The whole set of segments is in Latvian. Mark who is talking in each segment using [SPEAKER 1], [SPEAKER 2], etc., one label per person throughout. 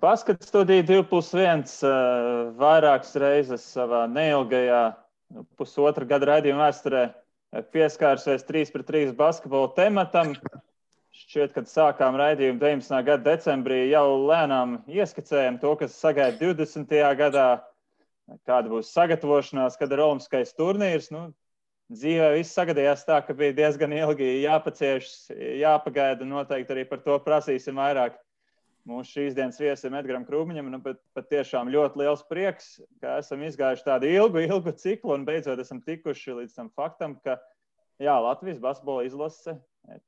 [SPEAKER 1] Basket studija 2+1 vairākas reizes savā neilgajā pusotra gada raidījuma vēsturē pieskārusies 3-3 basketbola tematam. Šķiet, kad sākām raidījumu 19. gada decembrī, jau lēnām ieskicējam to, kas sagaida 20. gadā, kāda būs sagatavošanās, kad ir olimpiskais turnīrs. Dzīvē viss sagadījās tā, ka bija diezgan ilgi jāpacieš, jāpagaida, noteikti arī par to prasīsim vairāk. Mūsu šīs dienas viesim Edgaram Krūmiņam, pat tiešām ļoti liels prieks, ka esam izgājuši tādu ilgu ciklu un beidzot esam tikuši līdz tam faktam, ka Latvijas basketbola izlase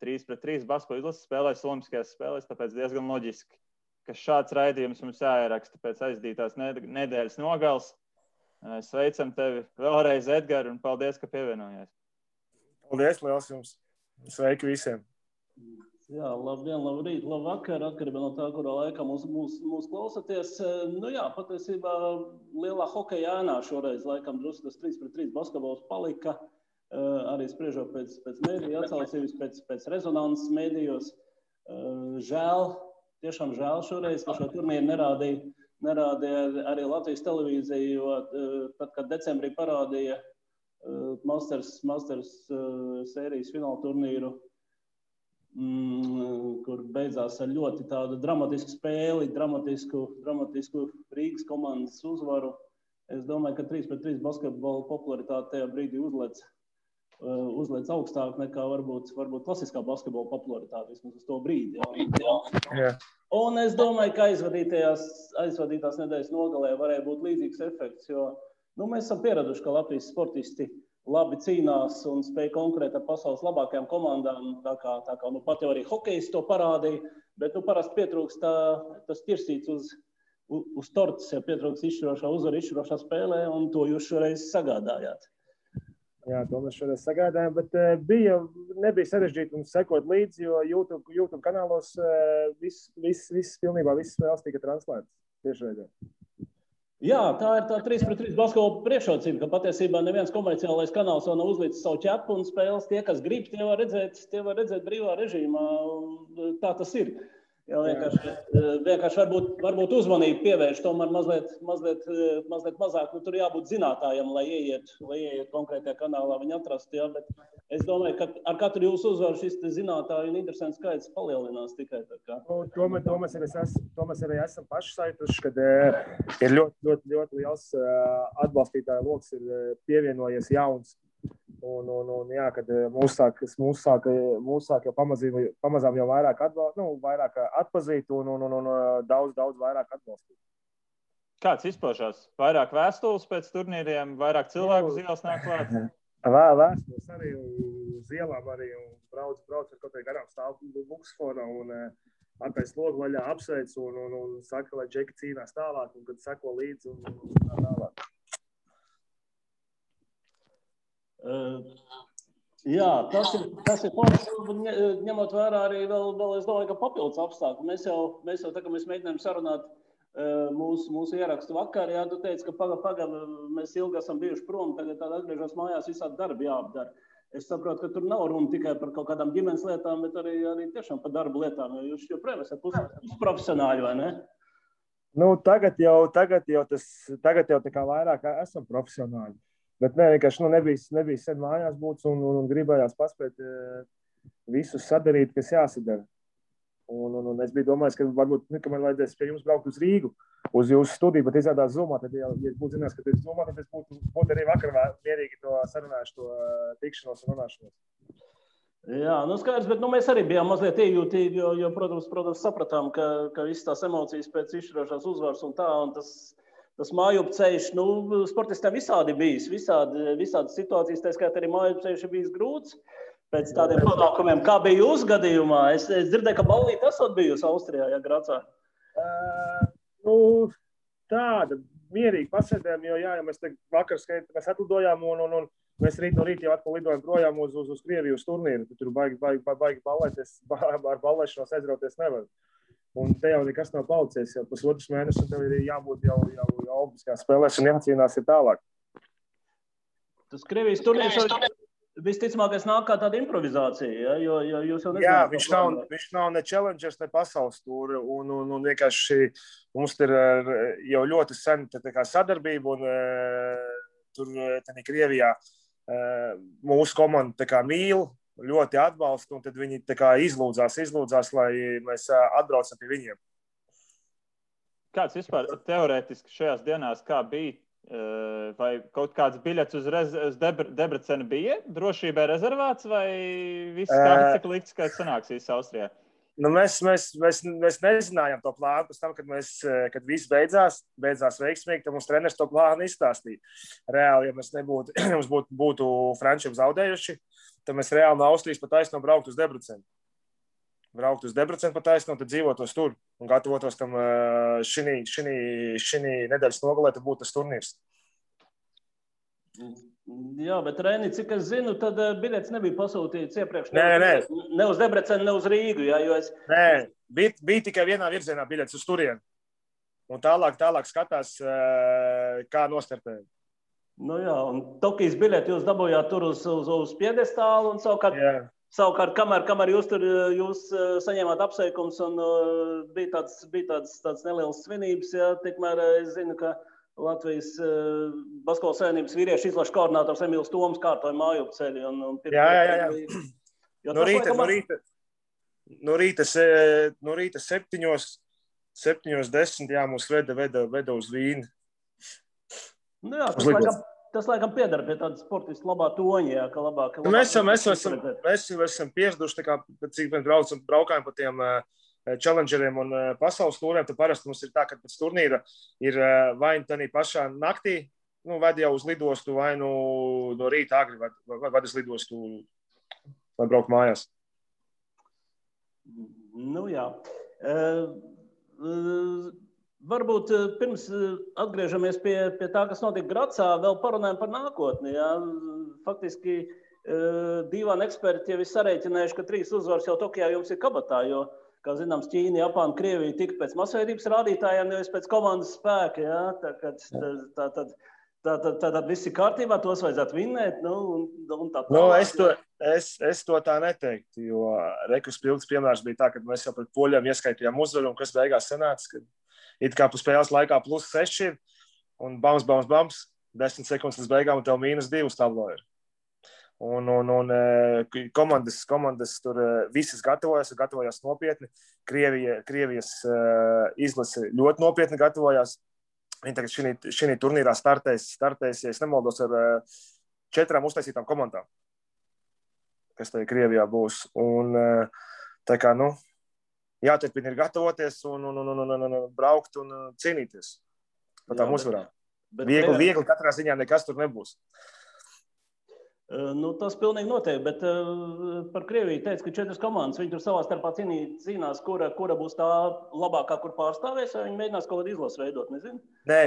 [SPEAKER 1] 3-3 basketbola izlase spēlēs olimpiskajās spēlēs, tāpēc diezgan loģiski, ka šāds raidījums mums jāieraksta pēc aizdītās nedēļas nogals. Sveicam tevi vēlreiz, Edgar, un paldies, ka pievienojies.
[SPEAKER 2] Paldies, liels jums. Sveiki visiem.
[SPEAKER 3] Jā, labdien, labrīt, labvakar, atkarībā no tā, kurā laikā mūs klausaties. Patiesībā lielā hokeja ēnā šoreiz laikam drusku tas 3-3 basketbols palika. Arī spriežot pēc mēdīju atsaucības, pēc rezonanses mēdījos. Tiešām žēl šoreiz, ka šo turnīru nerādīja arī Latvijas televīzija, jo tad, kad decembrī parādīja Masters sērijas fināla turnīru, kur beidzās ar ļoti tādu dramatisku spēli, dramatisku Rīgas komandas uzvaru. Es domāju, ka 3-3 basketbola popularitāte tajā brīdī uzliec augstāk nekā varbūt klasiskā basketbola popularitāte, vismaz uz to brīdi. Jā. Un es domāju, ka aizvadītās nedēļas nogalē varēja būt līdzīgs efekts, jo mēs esam pieraduši, ka Latvijas sportisti labi cīnās un spēj konkurēt ar pasaules labākajām komandām, tā kā pat jau arī hokejs to parādīja, bet parasti pietrūkst tas ķirsīts uz tortes, ja pietrūkst izšķirošā spēlē, un to jūs šoreiz sagādājāt.
[SPEAKER 2] Jā, to mēs šodien sagādājām, bet nebija sarežģīti mums sekot līdzi, jo YouTube kanālos pilnībā visas spēles tika translētas tiešraidē.
[SPEAKER 3] Jā, tā ir tā 3-3 basketbola priekšrocība, ka patiesībā neviens komerciālais kanāls vēl nav uzlicis savu ķepu un spēles. Tie, kas grib, tie var redzēt brīvā režīmā. Tā tas ir. Jā, vienkārši varbūt uzmanību pievērš, tomēr mazliet mazāk. Tur jābūt zinātājam, lai ieiet konkrētajā kanālā viņi atrast. Jā, bet es domāju, ka ar katru jūsu uzvaru šis zinātāju un interesants skaits palielinās tikai tā kā.
[SPEAKER 2] To mēs arī esam paši saituši, kad ir ļoti liels atbalstītāju loks ir pievienojies jauns. Un jā, kad mūs sāk jau pamazām jau vairāk atpazīt un daudz vairāk atbalstīt.
[SPEAKER 1] Kāds izpaužās? Vairāk vēstules pēc turnīriem, vairāk cilvēku uz ielas nāk klāt?
[SPEAKER 2] Vēstules arī uz ielām arī un brauc ar kaut kā garām stāv buksfona un attaisa logu vaļā apsveic un saka, lai džeki cīnās tālāk un kad seko līdzi un tālāk.
[SPEAKER 3] Jā, tas ir forši, ņemot vērā arī vēl es domāju, ka papildus apstākļi. Mēs jau tā, ka mēs mēģinājām sarunāt mūsu ierakstu vakar, jā, tu teici, ka pagaid, mēs ilgi esam bijuši prom, tagad atgriežos mājās, visādi darbi jāapdara. Es saprotu, ka tur nav runa tikai par kaut kādām ģimenes lietām, bet arī tiešām par darba lietām, jo jūs joprojām esat pusprofesionāļi, vai ne?
[SPEAKER 2] Tagad jau tā kā vairāk esam profesionāļi. Bet vienkārši nebija sen mājās būts un gribējās paspēt visus sadarīt, kas jāsadara. Un es biju domājis, ka varbūt, ka man vajadzēs pie jums braukt uz Rīgu, uz jūsu studiju, bet izrādās Zoomā, tad, ja būtu zinās, ka tu esi Zoomā, tad es būtu arī vakar mierīgi to sarunājuši, to tikšanos un runāšanos.
[SPEAKER 3] Jā, skaidrs, bet mēs arī bijām mazliet iejūtīgi, jo protams, sapratām, ka visas tās emocijas pēc izšķirošās uzvaras un tā, un tas mājup ceļš, sportistiem visādi bijis, visādi situācijas, tā skaitā arī mājup ceļš ir bijis grūts pēc tādiem panākumiem. Kā bija jūsu gadījumā? Es dzirdēju, ka ballīte esot bijusi Austrijā, ja Gracā.
[SPEAKER 2] Tāda mierīgi pasēdējām, jo mēs vakar mēs atlidojām un mēs rīt no rīta jau atkal lidojam projām uz Krieviju uz turnīru. Tur baigi ballēties, ar ballēšanos aizrauties nevar. Un te jau nekas nav palicies, jau pusotrs mēnesis, un tev ir jābūt jau olimpiskās spēlēs un jācīnās ir tālāk.
[SPEAKER 3] Tas Krievijas turnīrs visticamākais nāk kā tāda improvizācija, ja? Jo jūs jau
[SPEAKER 2] Jā,
[SPEAKER 3] nezināt.
[SPEAKER 2] viņš nav ne challengers, ne pasaules tūri, un vienkārši mums ir jau ļoti sen tā kā sadarbība, un tur Krievijā mūsu komanda tā kā mīl, ļoti atbalsta, un tad viņi tā kā izlūdzās, lai mēs atbraucam pie viņiem.
[SPEAKER 1] Kāds vispār teorētiski šajās dienās kā bija? Vai kaut kāds biļets uz Debrecenu bija drošībai rezervēts, vai viss kāds cik likts, ka sanāksīs Austrijā?
[SPEAKER 2] Nu, mēs nezinājām to plānu pēc tam, kad viss beidzās veiksmīgi, tad mums treneris to plānu izstāstīja. Reāli, ja mēs mums būtu frančiem zaudējuši, tad mēs reāli no Austrijas pa taisno braukt uz Debrecenu. Pa taisno, tad dzīvotos tur un gatavotos tam šī nedēļas nogalē, tad būtu tas turnīrs.
[SPEAKER 3] Jā, bet Reini, cik es zinu, tad biļets nebija pasūtīts iepriekš.
[SPEAKER 2] Ne
[SPEAKER 3] uz Debrecenu, ne uz Rīgu. Jā,
[SPEAKER 2] Nē, bija tikai vienā virzienā biļets uz turieni. Un tālāk skatās, kā nostartēja.
[SPEAKER 3] Nu jā, un Tokijas biļeti jūs dabūjāt tur uz piedestālu un savukārt, kamēr jūs saņēmāt apsveikums un bija tāds neliels svinības, jā, tikmēr es zinu, ka Latvijas basketbola savienības vīriešu izlašu koordinators Emīls Toms kārtoja mājup ceļu.
[SPEAKER 2] Jā. No rīta 7:10, jā, mūs veda uz Vīni.
[SPEAKER 3] Nu jā, tas laikam piedara pie tāda sportisti labā toņa, jā, ka labāk.
[SPEAKER 2] Mēs esam pieraduši, cik mēs braukājam pa tiem challengeriem un pasaules tūriem, tad parasti mums ir tā, ka pēc turnīra ir vai tādā pašā naktī, ved jau uz lidostu, vai no rīta agri, vai uz lidostu, lai braukt mājās.
[SPEAKER 3] Nu jā. Varbūt pirms atgriežamies pie tā, kas notika Gracā, vēl parunājam par nākotni. Jā. Faktiski divāni eksperti jau ir sarēķinājuši, ka 3 uzvaras jau Tokijā jums ir kabatā, jo, kā zināms, Ķīna, Japāna, Krievija tika pēc masveidības rādītājiem, nevis pēc komandas spēka. Jā. Tātad viss ir kārtībā, tos vajadzētu vinnēt. Un tā tālāk.
[SPEAKER 2] Es to tā neteiktu, jo rekus pilns piemērs bija tā, ka mēs jau pret poļiem ieskaitījām uzvaru, un kas beigās sanāca, ka it kā pa spēles laikā +6 ir, un bams, 10 sekundes līdz beigām, un tev -2 tablo ir. Un komandas tur visas gatavojās nopietni. Krievijas izlase ļoti nopietni gatavojās. Viņi tagad šī turnīrā startēs, ja es nemaldos, ar 4 uztaisītām komandām, kas tajā Krievijā būs. Un tā kā, jāturpina ir gatavoties un braukt un cīnīties par tām uzvarām. Viegli katrā ziņā nekas tur nebūs.
[SPEAKER 3] Tas pilnīgi noteikti, bet par Krieviju teica, ka 4 komandas, viņi tur savā starpā cīnās, kura būs tā labākā, kur pārstāvēs, vai viņi mēģinās kaut kādu izlasu veidot, nezinu?
[SPEAKER 2] Nē,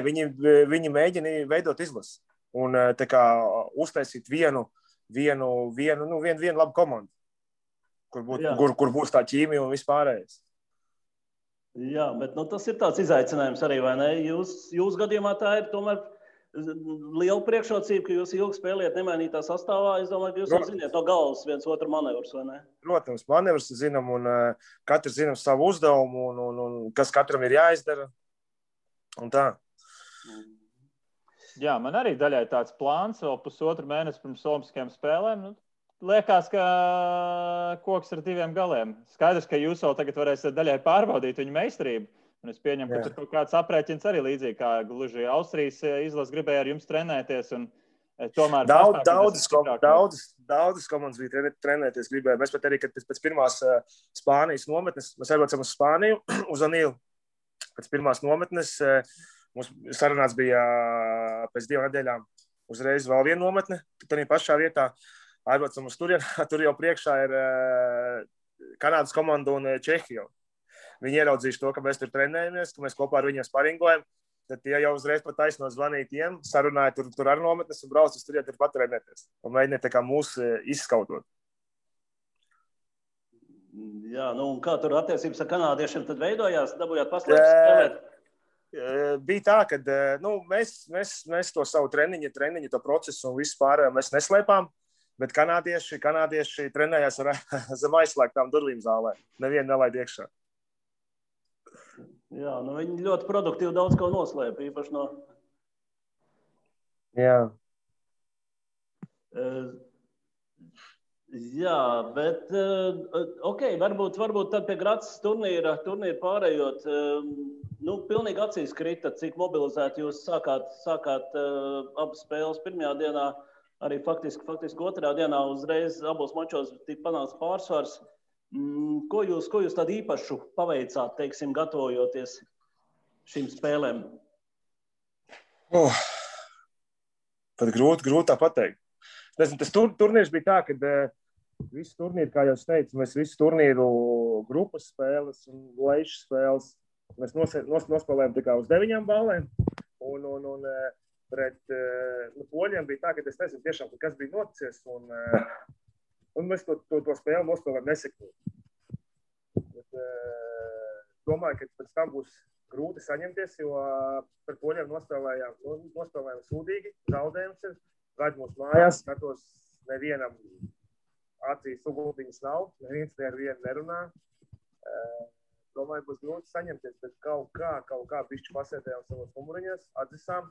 [SPEAKER 2] viņi mēģina veidot izlasu un tā kā uztaisīt vienu labu komandu, kur būs tā ķīmija un vispārējais.
[SPEAKER 3] Jā, bet tas ir tāds izaicinājums arī, vai ne? Jūs gadījumā tā ir tomēr liela priekšrocība, ka jūs ilgi spēlējat nemainītā sastāvā. Es domāju, ka jūs jau ziniet no galvas viens otru manevrus, vai ne?
[SPEAKER 2] Protams, manevrus zinām un katrs zinām savu uzdevumu un kas katram ir jāizdara. Un tā.
[SPEAKER 1] Jā, man arī daļai tāds plāns vēl 1,5 mēnesi pirms Olimpiskajām spēlēm. Liekas, ka koks ar 2 galiem. Skaidrs, ka jūs vēl tagad varēsiet daļai pārbaudīt viņu meistarību. Un es pieņemu, ka tur kaut kāds aprēķins arī līdzīgi, kā gluži Austrijas izlase gribēja ar jums trenēties. Un tomēr
[SPEAKER 2] Daudzas komandas bija trenēties gribēja. Mēs pat arī, kad pēc pirmās Spānijas nometnes, mēs aizbraucam uz Spāniju, uz Anīlu. Pēc pirmās nometnes mums sarunāts bija pēc 2 nedēļām uzreiz vēl viena nometne, tad pašā vietā aizbraucam uz turieni. Tur jau priekšā ir Kanādas komanda un Čehija. Viņi ieraudzījuši to, ka mēs tur trenējamies, ka mēs kopā ar viņiem sparingojam. Tad tie jau uzreiz pat taisno zvanīja tiem, sarunāja tur ar nometnes un brauc uz turieni tur pat trenēties. Un mēģināja tā kā mūs izskautot.
[SPEAKER 3] Jā, un kā tur attiecības ar kanādiešiem tad veidojās? Dabūjāt paslēpes spēlēt?
[SPEAKER 2] Bija tā, ka mēs to savu treniņu, to procesu un visu pārējo mēs neslēpām. Bet kanādieši trenējās zem aizslēgtām durvīm zālē. Nevienu nelaid iekšā.
[SPEAKER 3] Jā, nu viņi ļoti produktīvi daudz ko noslēpa, īpaši no...
[SPEAKER 2] Jā.
[SPEAKER 3] Jā, bet, varbūt tad pie Graces turnīra pārējot, pilnīgi acīs krita, cik mobilizēti jūs sākāt abas spēles pirmajā dienā, arī faktiski otrajā dienā uzreiz abos mačos tika panāks pārsvars. Ko jūs tādu īpašu paveicāt, teiksim, gatavojoties šīm spēlēm?
[SPEAKER 2] Tad grūti tā pateikt. Tas turnīrs bija tā, ka visu turnīru, kā jau es teicu, mēs visu turnīru grupas spēles un leišu spēles mēs nospēlējām tikai uz 9 ballēm. Un pret poļiem bija tā, ka es nezinu tiešām, kas bija noticies. Un mēs to spēli nospēlējām nesekmīgi. Domāju, ka pēc tam būs grūti saņemties, jo par poļiem nospēlējām sūdīgi, zaudējums ir. Gaidu mūsu mājās, skatos, nevienam acīs uguntiņas nav, neviens ar vienu nerunā. Domāju, būs grūti saņemties, bet kaut kā bišķi pasēdējām savos numuriņos, atzisām,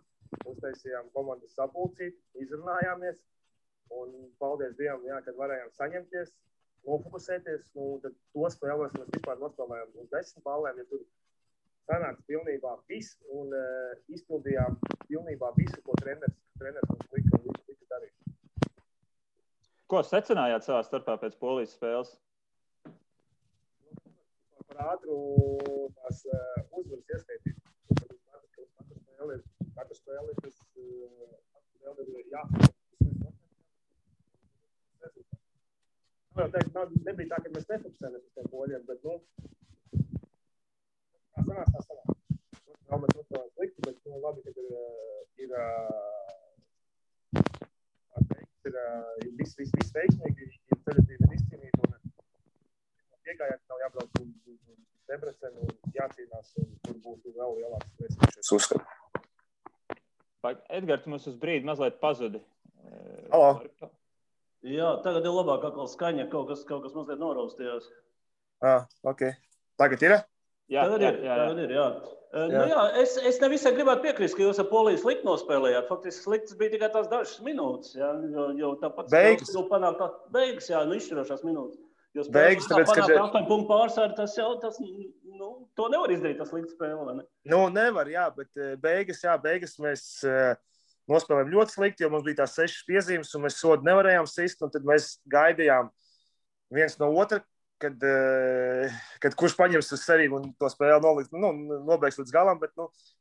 [SPEAKER 2] uztaisījām komandas sapulcīt, izrunājāmies. Un paldies Dievam, kad varējām saņemties, nofokusēties. Tad to spēlēs mēs vispār nospēlējām uz 10 ballēm, ja tur sanāca pilnībā viss un izpildījām pilnībā visu, ko treneris mums lika darīt.
[SPEAKER 1] Ko secinājāt savā starpā pēc Polijas spēles?
[SPEAKER 2] Par ātru tās uzvaras ieskaitīt. Katra spēle ir tas nebija tā, ka mēs nefokusējamies uz tiem poļiem, bet tā sanāk. Mēs nospēlējām slikti, bet labi, ka ir viss veiksmīgi, ir ceļatība izcīnīta un piegājāt nav jābrauc uz Debrecenu un jācīnās un tur būtu vēl lielāks spēcīgs uzskatu.
[SPEAKER 1] Edgars, tu mums uz brīdi mazliet pazudi.
[SPEAKER 2] Halo.
[SPEAKER 3] Jā, tagad ir labāk atkal skaņa, kaut kas mazliet noraustījās.
[SPEAKER 2] Ok. Tagad ir?
[SPEAKER 3] Tagad ir. Es nevisai gribētu piekrist, ka jūs ar Poliju slikti nospēlējāt. Faktiski sliktas bija tikai tās dažas minūtes, jo tāpat
[SPEAKER 2] beigas,
[SPEAKER 3] izšķirošās minūtes. Jo
[SPEAKER 2] beigas, tāpēc,
[SPEAKER 3] panākt 8 punktu pārsvaru, to nevar izdarīt, tas slikta spēle, vai ne?
[SPEAKER 2] Nevar, bet beigas mēs nospēlējām ļoti slikti, jo mums bija tās 6 piezīmes, un mēs sodu nevarējām sist, un tad mēs gaidījām viens no otra, kad kurš paņems uz sevi un to spēli nobeigs līdz galam, bet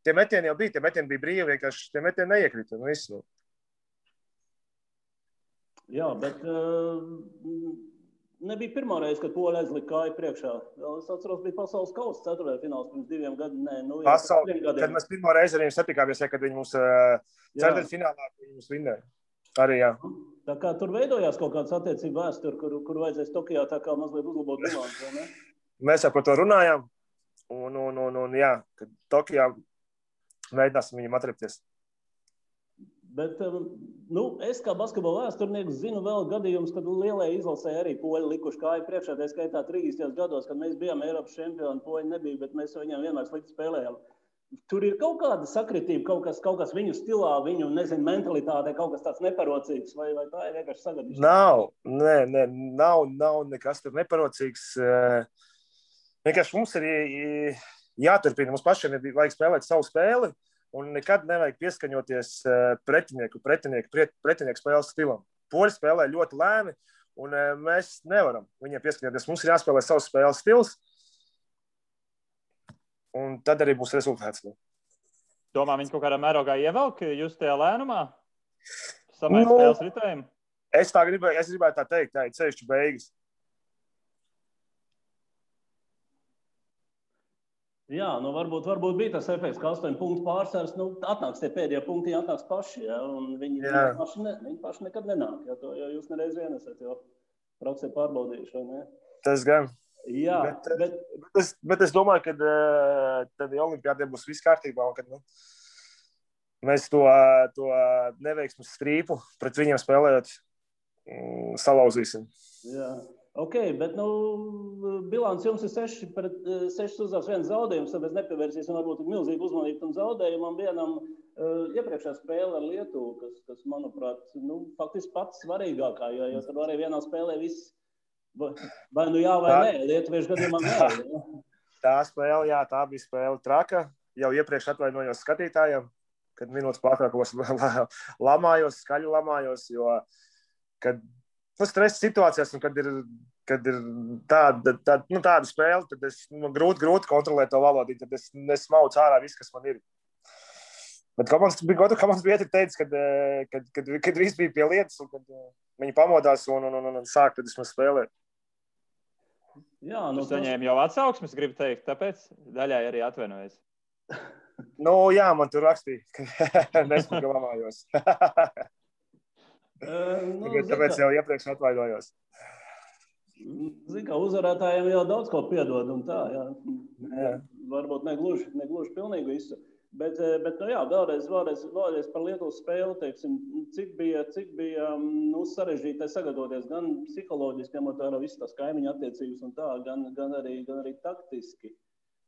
[SPEAKER 2] tie metieni jau bija, tie metieni bija brīvi, vienkārši tie metieni neiekrita.
[SPEAKER 3] Jā, bet nebija pirmā reize, kad Poļi aizlika kāju priekšā. Es atceros, bija pasaules kausa 4. fināls pirms 2 gadiem.
[SPEAKER 2] Kad mēs pirmo reizi ar viņiem satikāmies, kad viņi mums 4. finālā mums vinnēja. Arī, jā.
[SPEAKER 3] Tā kā tur veidojās kaut kāds attiecību vēsturi, kur vajadzēs Tokijā tā kā mazliet uzlabot bilanci, vai ne?
[SPEAKER 2] Mēs jau par to runājām, un jā, kad Tokijā mēģināsim viņam atrepties.
[SPEAKER 3] Bet, es kā basketbola vēsturnieks zinu vēl gadījumus, kad lielajai izlasē arī Poļi likuši kāju priekšā, tā skaitā 30. gados, kad mēs bijām Eiropas čempioni, Poļi nebija, bet mēs viņiem vienmēr slikti spēlējām. Tur ir kaut kāda sakritība, kaut kas viņu stilā, viņu, mentalitātē, kaut kas tāds neparocīgs, vai tā ir vienkārši sagadīšana?
[SPEAKER 2] Nav nekas tur neparocīgs. Vienkārši mums ir jāturpina, mums pašiem vajag spēlēt savu spēli, un nekad nevajag pieskaņoties pretinieku spēles stilam. Poļi spēlē ļoti lēni, un mēs nevaram viņiem pieskaņoties. Mums ir jāspēlē savs spēles stils, un tad arī būs rezultāts.
[SPEAKER 1] Domā, viņi kaut kādā mērogā ievelk jūs tajā lēnumā? Samēr spēles ritējumu?
[SPEAKER 2] Es gribētu tā teikt, tā ir ceļšķi beigas.
[SPEAKER 3] Jā, varbūt bija tas efekts, ka 8 punktu pārsvars, atnāks tie pēdējie punkti, atnāks paši, un viņi paši nekad nenāk, jo jūs nereiz vien esat jau praksē pārbaudījuši, vai ne?
[SPEAKER 2] Tas gan.
[SPEAKER 3] Jā,
[SPEAKER 2] bet es domāju, ka tad olimpiādiem būs viss kārtībā, un kad mēs to neveiksmes strīpu pret viņiem spēlējot salauzīsim.
[SPEAKER 3] Jā. Ok, bet bilants jums ir 6 uzvaras, 1 zaudējums, tāpēc nepievērsīsim varbūt milzīgu uzmanību tam zaudējumam vienam iepriekšējā spēle ar Lietuvu, kas manuprāt, faktiski pats svarīgākā, jo tur arī vienā spēlē viss vai jā vai nē, lietuviešu gadījumā nē. Ja?
[SPEAKER 2] Tā spēle, jā, tā bija spēle traka. Jau iepriekš atvainojos skatītājiem, kad minūtes pārtraukumos skaļi lamājos, jo, kad stresa situācijās, un kad ir tāda spēle, tad es grūti kontrolēt to valodību, tad es nesmaucu ārā viss, kas man ir. Bet komandas bija teicis, kad viss bija pie lietas, un kad viņi pamodās un sāk, tad es man spēlēju.
[SPEAKER 1] Jā, saņēma jau atsauksmes, gribu teikt, tāpēc daļai arī atvainojos.
[SPEAKER 2] Jā, man tur rakstīja, ka nesmuka lamājos. Tāpēc jau iepriekš atvainojos.
[SPEAKER 3] Zini, kā uzvarētājiem jau daudz ko piedod un tā, jā. Varbūt negluži pilnīgi visu. Bet jā, vēlreiz par Lietuvas spēli, teiksim, cik bija sarežģīti sagatavoties gan psiholoģiski, ņemot vērā visas tās kaimiņu attiecības un tā, gan arī taktiski.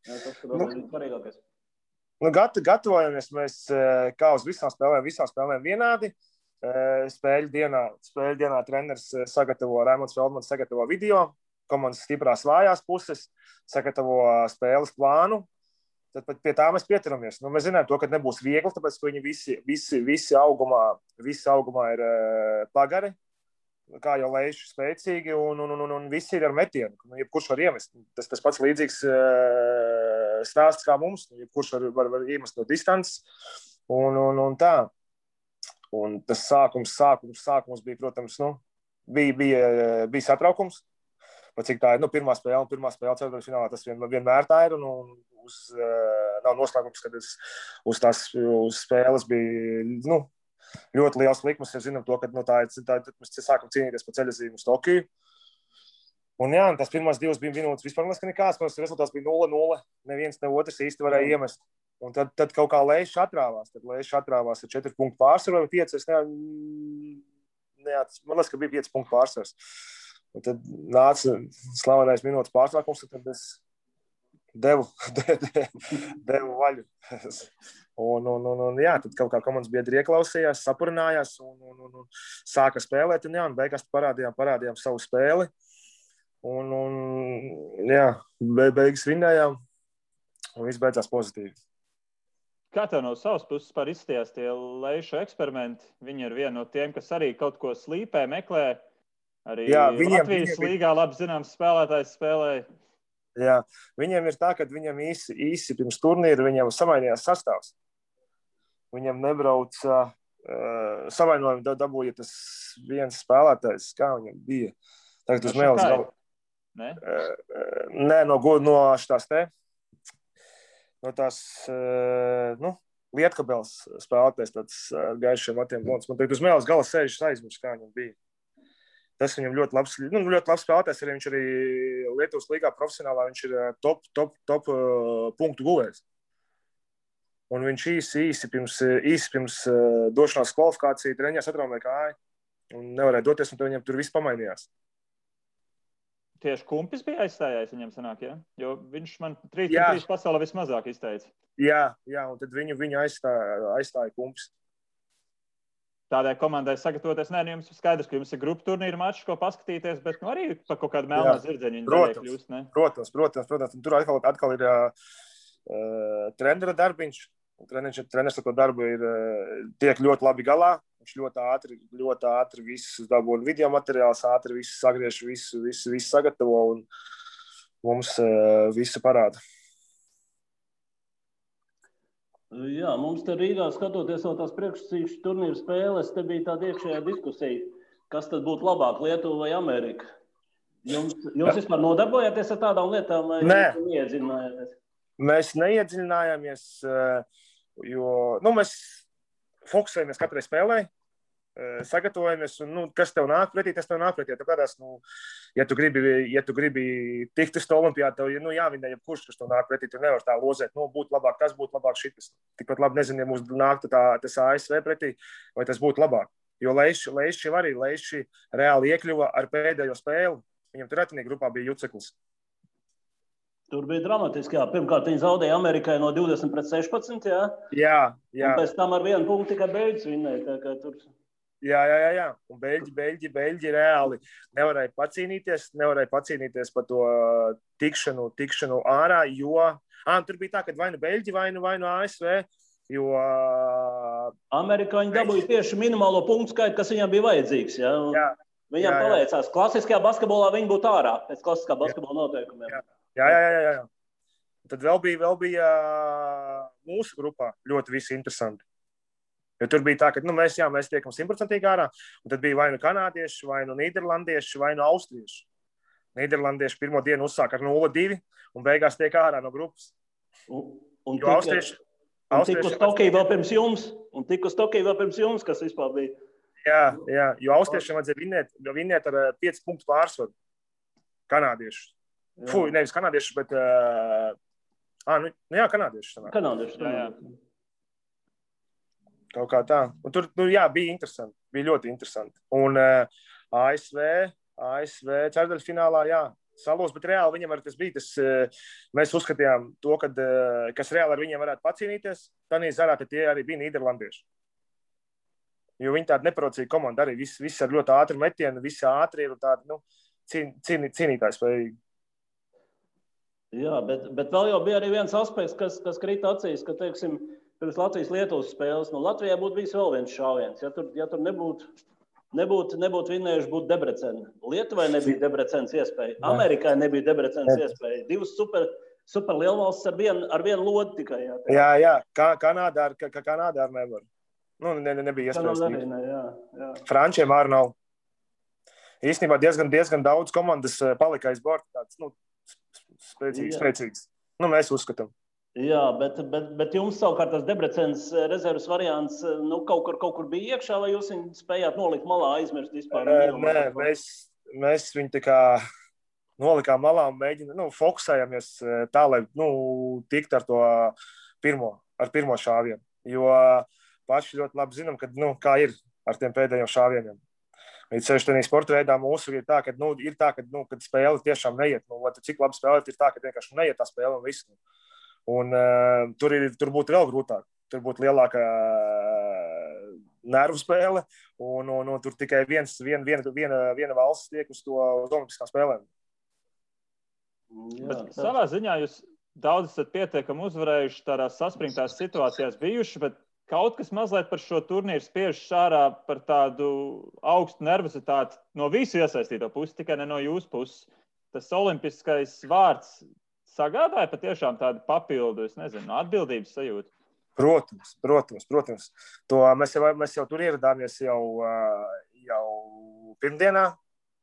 [SPEAKER 3] Tas tur ir svarīgākais.
[SPEAKER 2] Gatavojamies mēs kā uz visām spēlēm vienādi. Spēļu dienā treneris Raimonds Feldmans sagatavo video, komandas stiprās vājās puses, sagatavo spēles plānu. Tad pie tā mēs pieturamies. Mēs zinām to, ka nebūs viegli, tāpēc, ka viņi visi augumā ir pagari, kā jau lejuši spēcīgi, un visi ir ar metienu. Jebkurš var iemest. Tas pats līdzīgs stāsts kā mums. Jebkurš var iemest no distances. Un tā. Un tas sākums bija, protams, bija satraukums. Cik tā ir, pirmā spēle ceturtdaļas finālā, tas vienmēr tā ir, un nav noslēgums, kad uz spēles bija, ļoti liels likmes, ja zinām to, ka mēs sākam cīnīties pa ceļazīmu uz Tokiju. Un jā, tās pirmās 2 minūtes vispār nekāds, rezultāts bija 0-0, neviens, ne otrs īsti varēja iemest. Un tad kaut kā Leišs atrāvās, ar 4 punktu pārsvaru vai 5, man liekas, ka bija 5 punktu pārsvars. Un tad nāca slavenais minūtes pārtraukums, tad es devu vaļu. Un jā, tad kaut kā komandas biedri ieklausījās, sapurinājās un sāka spēlēt. Un beigās parādījām savu spēli. Un jā, beigas vinnējām un viss beidzās pozitīvi.
[SPEAKER 1] Kā tev no savas puses par izstījās tie Leišu eksperimenti? Viņi ir viena no tiem, kas arī kaut ko slīpē, meklē. Arī Latvijas līgā labi zināms spēlētājs spēlēja.
[SPEAKER 2] Jā, viņiem ir tā, ka viņam īsi pirms turnīra viņam samainījās sastāvs. Viņam nebrauca savainojumu dabūja tas viens spēlētājs, kā viņam bija. Tagad uz mēles galva. Nē, no šitās te. No tās, Lietkabels spēlētājs tāds gaišiem matiem blonds. Man tagad uz mēles galva sēžas aizmirst, kā viņam bija. Tas viņam ļoti labs spēlētājs, arī viņš arī Lietuvas līgā profesionālā, viņš ir top punktu guvējs. Un viņš īsi pirms došanās kvalifikāciju treņās atraumēja kāju un nevarēja doties, un viņam tur viss pamainījās.
[SPEAKER 1] Tieši Kumpis bija aizstājājis viņam sanāk, ja? Jo viņš man 3 pasaulē vismazāk izteica.
[SPEAKER 2] Jā, un tad viņu aizstāja Kumpis.
[SPEAKER 1] Tādai komandai sagatavoties, jums skaidrs, ka jums ir grupu turnīra mačs, ko paskatīties, bet arī par kaut kādu melnā zirdziņu viņi daļai kļūst, ne?
[SPEAKER 2] Protams. Un tur atkal ir trenera darbiņš. Treneris ar to darbu tiek ļoti labi galā. Viņš ļoti ātri visus dabūna video materiāls, ātri visus sagriež, visu sagatavo un mums visu parāda.
[SPEAKER 3] Jā, mums te Rīgā skatoties vēl tās priekšsacīkšu turnīru spēles, te bija tāda iekšējā diskusija, kas tad būtu labāk, Lietuva vai Amerika? Jūs vispār nodarbojāties ar tādām lietām vai neiedziļinājāties?
[SPEAKER 2] Mēs neiedziļinājāmies, jo mēs fokusējamies katrai spēlē, sagatavojamies, un kas tev nāk pretī, tas tev nāk pretī. Tāpēc, ja tu gribi tikt uz to olimpiādu, tev jāvinē jebkurš, kas tev nāk pretī, tu nevar tā lozēt, būtu labāk, tas būtu labāk šitas. Tikpat labi nezinu, ja mums nāk tas ASV pretī, vai tas būtu labāk. Jo Leišs arī reāli iekļuva ar pēdējo spēli. Viņam tur atinī grupā bija Juceklis.
[SPEAKER 3] Tur bija dramatiski, jā. Pirmkārt, viņi zaudēja Amerikai no 20-16, jā?
[SPEAKER 2] Jā.
[SPEAKER 3] Un pēc tam ar 1 punktu tikai beidz vinnēja, tā kā tur...
[SPEAKER 2] Jā. Un beļģi reāli nevarēja pacīnīties par to tikšanu ārā, jo... tur bija tā, ka vai nu beļģi, vai nu ASV, jo...
[SPEAKER 3] Amerikāņi dabūja tieši minimālo punktu skaitu, kas viņam bija vajadzīgs, jā? Viņam paveicās. Klasiskajā basketbolā viņi būtu ārā, pēc klasiskā basketbola noteikumiem.
[SPEAKER 2] Jā. Tad vēl bija mūsu grupā ļoti visi interesanti. Jo tur bija tā, ka mēs tiekam 100% ārā, un tad bija vai nu kanādieši, vai nu nīderlandieši, vai nu austrieši. Nīderlandieši pirmo dienu uzsāk ar 0-2 un beigās tiek ārā no grupas.
[SPEAKER 3] Un tik uz Tokiju vēl pirms jums, kas vispār bija.
[SPEAKER 2] Jā, jo austriešiem vajadzēja vinnēt ar 5 punktu pārsvaru. Kanādieši. Nevis kanādieši, bet... kanādieši.
[SPEAKER 3] Jā.
[SPEAKER 2] Kaut kā tā. Un tur, bija interesanti. Bija ļoti interesanti. Un ASV ceturdaļfinālā, salos, bet reāli viņam arī tas bija. Mēs uzskatījām to, kas reāli ar viņiem varētu pacīnīties. Tanī zarā, tad tie arī bija nīderlandieši. Jo viņi tāda neparocīga komanda arī. Viss ar ļoti ātru metienu, visi ātri ir tādi, cīnītājs spējīgi.
[SPEAKER 3] Jā, bet vēl jau bija arī viens aspekts, kas krita acīs, ka, teiksim, pirms Latvijas-Lietuvas spēles, Latvijā būtu bijis vēl viens šāviens. Ja tur nebūtu vinnējuši, būtu Debreceni. Lietuvai nebija Debrecenes iespēja, Amerikai nebija Debrecenes iespēja. Divas super lielvalstis ar vienu lodi tikai.
[SPEAKER 2] Jā, Kanādā ar nevar. Nebija iespējas. Frančiem arī nav. Īstenībā diezgan daudz komandas palika aiz borta tāds, spēcīgs. Mēs uzskatām.
[SPEAKER 3] Jā, bet jums savukārt tas Debrecenes rezerves variants kaut kur bija iekšā, vai jūs viņu spējāt nolikt malā, aizmirst vispār?
[SPEAKER 2] Nē, mēs viņu tā kā nolikām malā un fokusējamies tā, lai tikt ar to pirmo šāvienu. Jo paši ļoti labi zinām, kā ir ar tiem pēdējiem šāvieniem. Līdz sevišķi tādā sporta veidā mūsu ir tā, kad spēle tiešām neiet. Cik labi spēlēt, ir tā, ka vienkārši neiet tā spēle un viss. Un tur būtu vēl grūtāk. Tur būtu lielāka nervu spēle, un tur tikai viena valsts tiek uz olimpiskām spēlēm.
[SPEAKER 1] Bet savā ziņā jūs daudz esat pietiekami uzvarējuši tādās saspringtās situācijās bijuši, bet kaut kas mazliet par šo turnīru spiež ārā par tādu augstu nervozitāti no visu iesaistīto pusi, tikai ne no jūsu puses. Tas olimpiskais vārds sagādāja patiešām tādu papildu, atbildības sajūtu?
[SPEAKER 2] Protams. To mēs jau tur ieradāmies jau pirmdienā,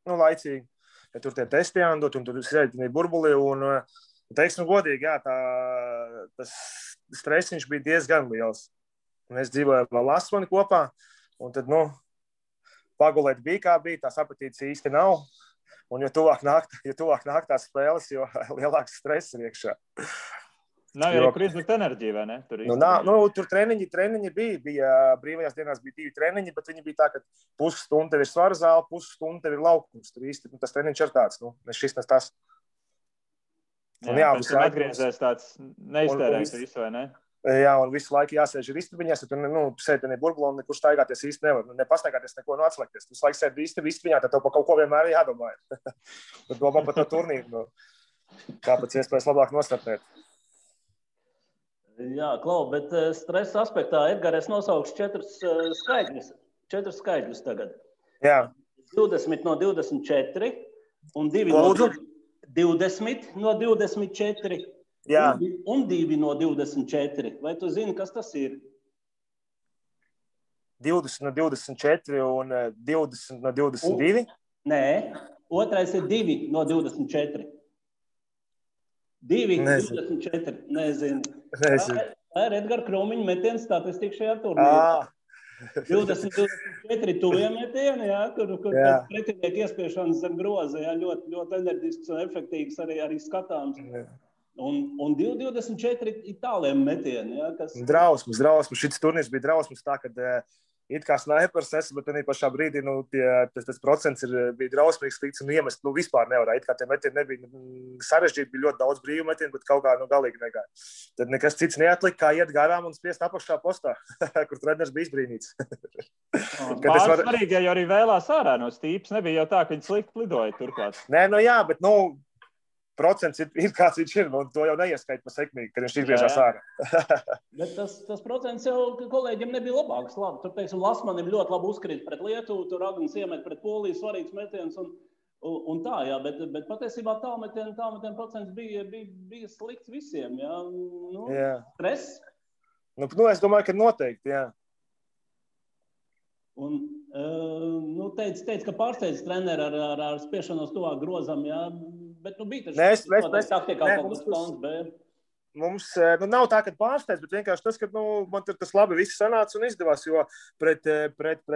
[SPEAKER 2] laicīgi. Ja tur tie testi jāndot, un tur sēdinīja burbuli, un teiksim godīgi, tas stresiņš bija diezgan liels. Mēs dzīvojam vēl Asmani kopā, un tad, pagulēt bija kā bija, tās apetītes īsti nav. Un jo tuvāk nāk tās spēles, jo lielāks stress ir iekšā.
[SPEAKER 1] Nav arī kur izlikt enerģiju, vai ne?
[SPEAKER 2] Tur treniņi bija brīvajās dienās bija 2 treniņi, bet viņi bija tā, ka pusstunda tev ir svara zāle, pusstunda tev ir laukums. Tur īsti tas treniņš ir tāds, šis nes tas.
[SPEAKER 1] Pēc tam atgriezies tāds neiztērējis visu, vai ne?
[SPEAKER 2] Jā, un visu laiku jāsēž ir istabiņās, ja tu sēdi burbulā un nekur staigāties īsti nevar. Nepastaigāties neko, atslēgties. Tu laiku sēdi istabiņā, tad tev pa kaut ko vienmēr jādomā. Tad domā par to turnīru. Kāpēc iespējas labāk nostartēt?
[SPEAKER 3] Jā, Klau, bet stresa aspektā, Edgar, es nosaukšu 4 skaitļus tagad.
[SPEAKER 2] Jā.
[SPEAKER 3] 20 no 24 un 2 no 24.
[SPEAKER 2] Jā.
[SPEAKER 3] Un 2 no 24. Vai tu zini, kas tas ir?
[SPEAKER 2] 20 no 24 un 20 no 22?
[SPEAKER 3] Nē, otrais ir 2 no 24. 2 no 24. Nezinu. Tā ir Edgara Krūmiņa metiena statistika šajā turnīrā. 20-24 tuvie metieni, kur pretinieki iespiešanas zem groza, ļoti, ļoti enerģisks un efektīvs arī skatāms. Un 2-24 ir tāliem metieni. Kas...
[SPEAKER 2] Drausmas. Šis turnīrs bija drausmas tā, kad it kā snaipers esmu, bet pašā brīdī tas procents bija drausmīgs slikts un iemest vispār nevarēja. It kā tie metieni nebija sarežģīti, bija ļoti daudz brīvu metienu, bet kaut kā galīgi negāja. Tad nekas cits neatlika, kā iet garām un spiest apakšā postā, kur treneris bija izbrīnīts.
[SPEAKER 1] Pāris svarīgi, jo arī vēlās ārā no stīpas. Nebija jau tā, ka viņi slikti lidoja turklāt.
[SPEAKER 2] Nē, jā, bet procents ir kāds viņš ir, un to jau neieskait pa sekmīgi, kad viņš izgriežās ārā.
[SPEAKER 3] Bet tas procents jau kolēģiem nebija labāks. Labi, tur, teiksim, Lasmanim ļoti labi uzkrīt pret Lietuvu, tur Agnis iemet pret Poliju svarīgs metiens un tā, jā, bet patiesībā tālmetienu procents bija slikts visiem, jā.
[SPEAKER 2] Jā.
[SPEAKER 3] Stress?
[SPEAKER 2] Es domāju, ka noteikti, jā.
[SPEAKER 3] Un, teica, ka pārsteidz treneri ar spiešanos tuvāk grozam, jā. Bet bija taču taktikā kaut kas plāns B.
[SPEAKER 2] Mums nav tā, ka pārsteidz, bet vienkārši tas, ka man tur tas labi viss sanāca un izdevās, jo pret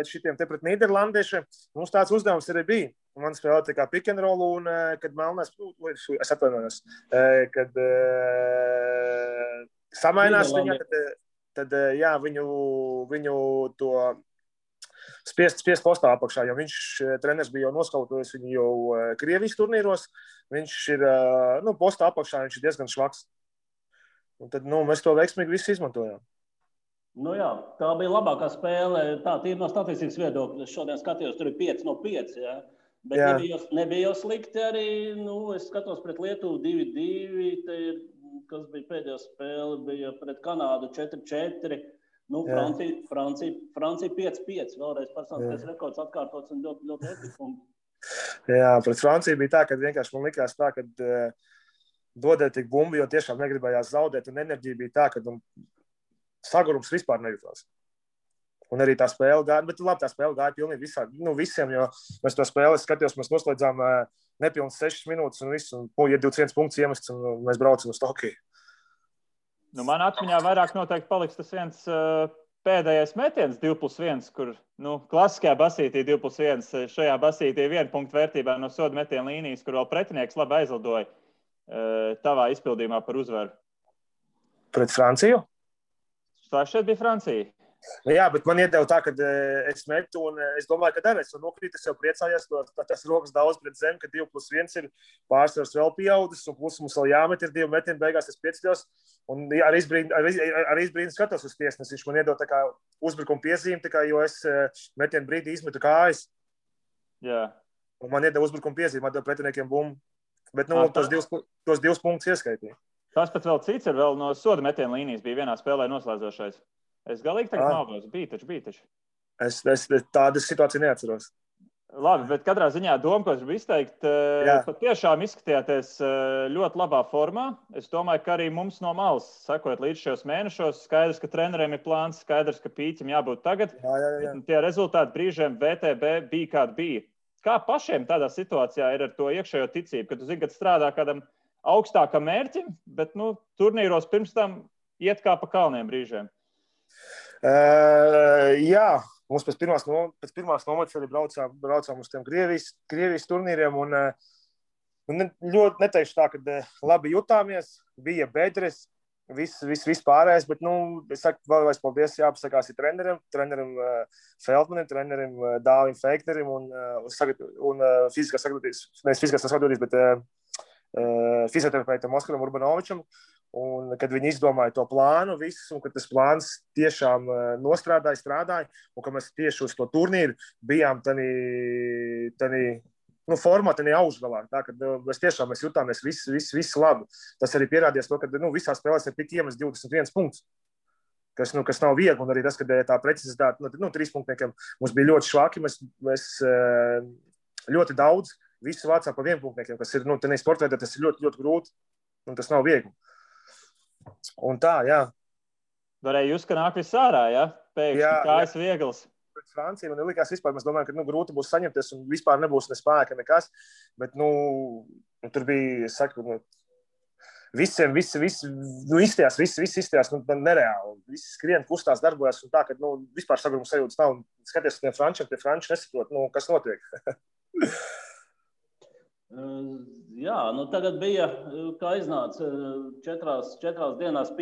[SPEAKER 2] šitiem te pret nīderlandiešiem mums tāds uzdevums arī bija. Man spēlēja tā kā pick and roll un, kad Melnēs, es atvainojos, kad samainās viņa, tad jā, viņu to spiest postā apakšā, jo treneris bija jau noskautojis viņu jau Krievijas turnīros. Viņš ir, postā apakšā, viņš ir diezgan švaks. Un tad, mēs to veiksmīgi visi izmantojām.
[SPEAKER 3] Jā, tā bija labākā spēle. Tā ir no statistikas viedokļa. Es šodien skatījos, tur ir 5 no 5, jā. Bet nebija jau slikti arī, es skatos pret Lietuvu 2-2, te ir, kas bija pēdējā spēle, bija pret Kanādu 4-4. Francija 5-5, vēlreiz personīgais rekords atkārtots un ļoti, ļoti efektīvi.
[SPEAKER 2] Jā, pret Franciju bija tā, ka vienkārši man likās tā, ka dodēja tik bumbu, jo tiešām negribējās zaudēt, un enerģija bija tā, ka sagurums vispār nejūtās. Un arī tā spēle gāja, bet labi, tā spēle gāja pilnīgi visiem, jo mēs to spēli skatījos, mēs noslēdzām nepilnas 6 minūtes un viss, un ja 21 punkts iemests, un mēs braucam uz Tokiju.
[SPEAKER 1] Man atmiņā vairāk noteikti paliks tas viens pēdējais metiens 2+1, kur klasiskajā basītī 2+1, šajā basītī 1 punktu vērtībā no soda metiena līnijas, kur vēl pretinieks labi aizlidoja tavā izpildījumā par uzvaru. Pret
[SPEAKER 2] Franciju?
[SPEAKER 1] Tā šeit bija Francija.
[SPEAKER 2] Jā, bet man iedeva tā, ka es metu, un es domāju, ka arī es nokrītu, es jau priecājos, tas rokas daudz pret zemi, ka 2+1 ir pārsvars vēl pieaudzis, un plus mums vēl jāmet ir 2 metieni, beigās es pieceļos, un arī izbrīni skatos uz tiesnesi, viņš man iedeva tā kā uzbrukuma piezīmi, tā kā, jo es metienu brīdī izmetu kājas.
[SPEAKER 1] Jā.
[SPEAKER 2] Un man iedeva uzbrukuma piezīmi, atdeva pretiniekiem bumbu, bet tos 2 punktus ieskaitīja.
[SPEAKER 1] Tas pat vēl cits ir vēl no soda metiena līnijas, bija vienā spēlē noslēdzošais. Es galīgi tagad maldos. Bija taču.
[SPEAKER 2] Es tādas situācijas neatceros.
[SPEAKER 1] Labi, bet katrā ziņā doma, ko es gribu izteikt, patiešām izskatījāties ļoti labā formā. Es domāju, ka arī mums no malas, sekojot līdz šos mēnešos, skaidrs, ka treneriem ir plāns, skaidrs, ka pīķim jābūt tagad.
[SPEAKER 2] Jā.
[SPEAKER 1] Tie rezultāti brīžiem VTB bija kādi bija. Kā pašiem tādā situācijā ir ar to iekšējo ticību, ka tu zini, ka strādā kādam augstākam mērķim, bet turnīros pirms tam iet kā pa kalniem brīžiem?
[SPEAKER 2] Jā, mums pēc pirmās nomatas arī braucām uz tiem Krievijas turnīriem un ļoti neteikšu tā, ka labi jutāmies, bija bedres, viss pārējais, bet, es saku, vēlreiz paldies jāpasakās ir trenerim Feldmanim, trenerim Dāvim Feiknerim un fiziskās sagatavotības, bet fizioterapeitam Oskaram Urbanovičam. Un, kad viņi izdomāja to plānu visu, un kad tas plāns tiešām strādāja, un ka mēs tieši uz to turnīru bijām tādā formā, tādā augšgalā. Tā, kad mēs jutāmies visi labi. Tas arī pierādījās to, ka visās spēlēs ir tik iemest 21 punktus, kas nav viegli, un arī tas, ka tā precizitāte 3 punktniekiem mums bija ļoti švaki, mēs ļoti daudz visu vācām pa 1 punktniekiem, kas ir, tādā sportveidā tas ir ļoti, ļoti grūti, un tas nav viegli. Un tā, jā.
[SPEAKER 1] Varēja just, ka nāk viss ārā, jā? Pēkšņi kājas viegls.
[SPEAKER 2] Pret Franciju man likās vispār, mēs domājam, ka grūti būs saņemties un vispār nebūs ne spēka nekas, bet, tur bija, es saku, visiem, visi izstījās, nereāli. Visi skrien, kustās, darbojas un tā, ka, vispār saguruma sajūtas nav. Skaties uz tiem frančiem, tie franči nesaprot, kas notiek.
[SPEAKER 3] Jā, tagad bija, kā iznāca, 4 dienās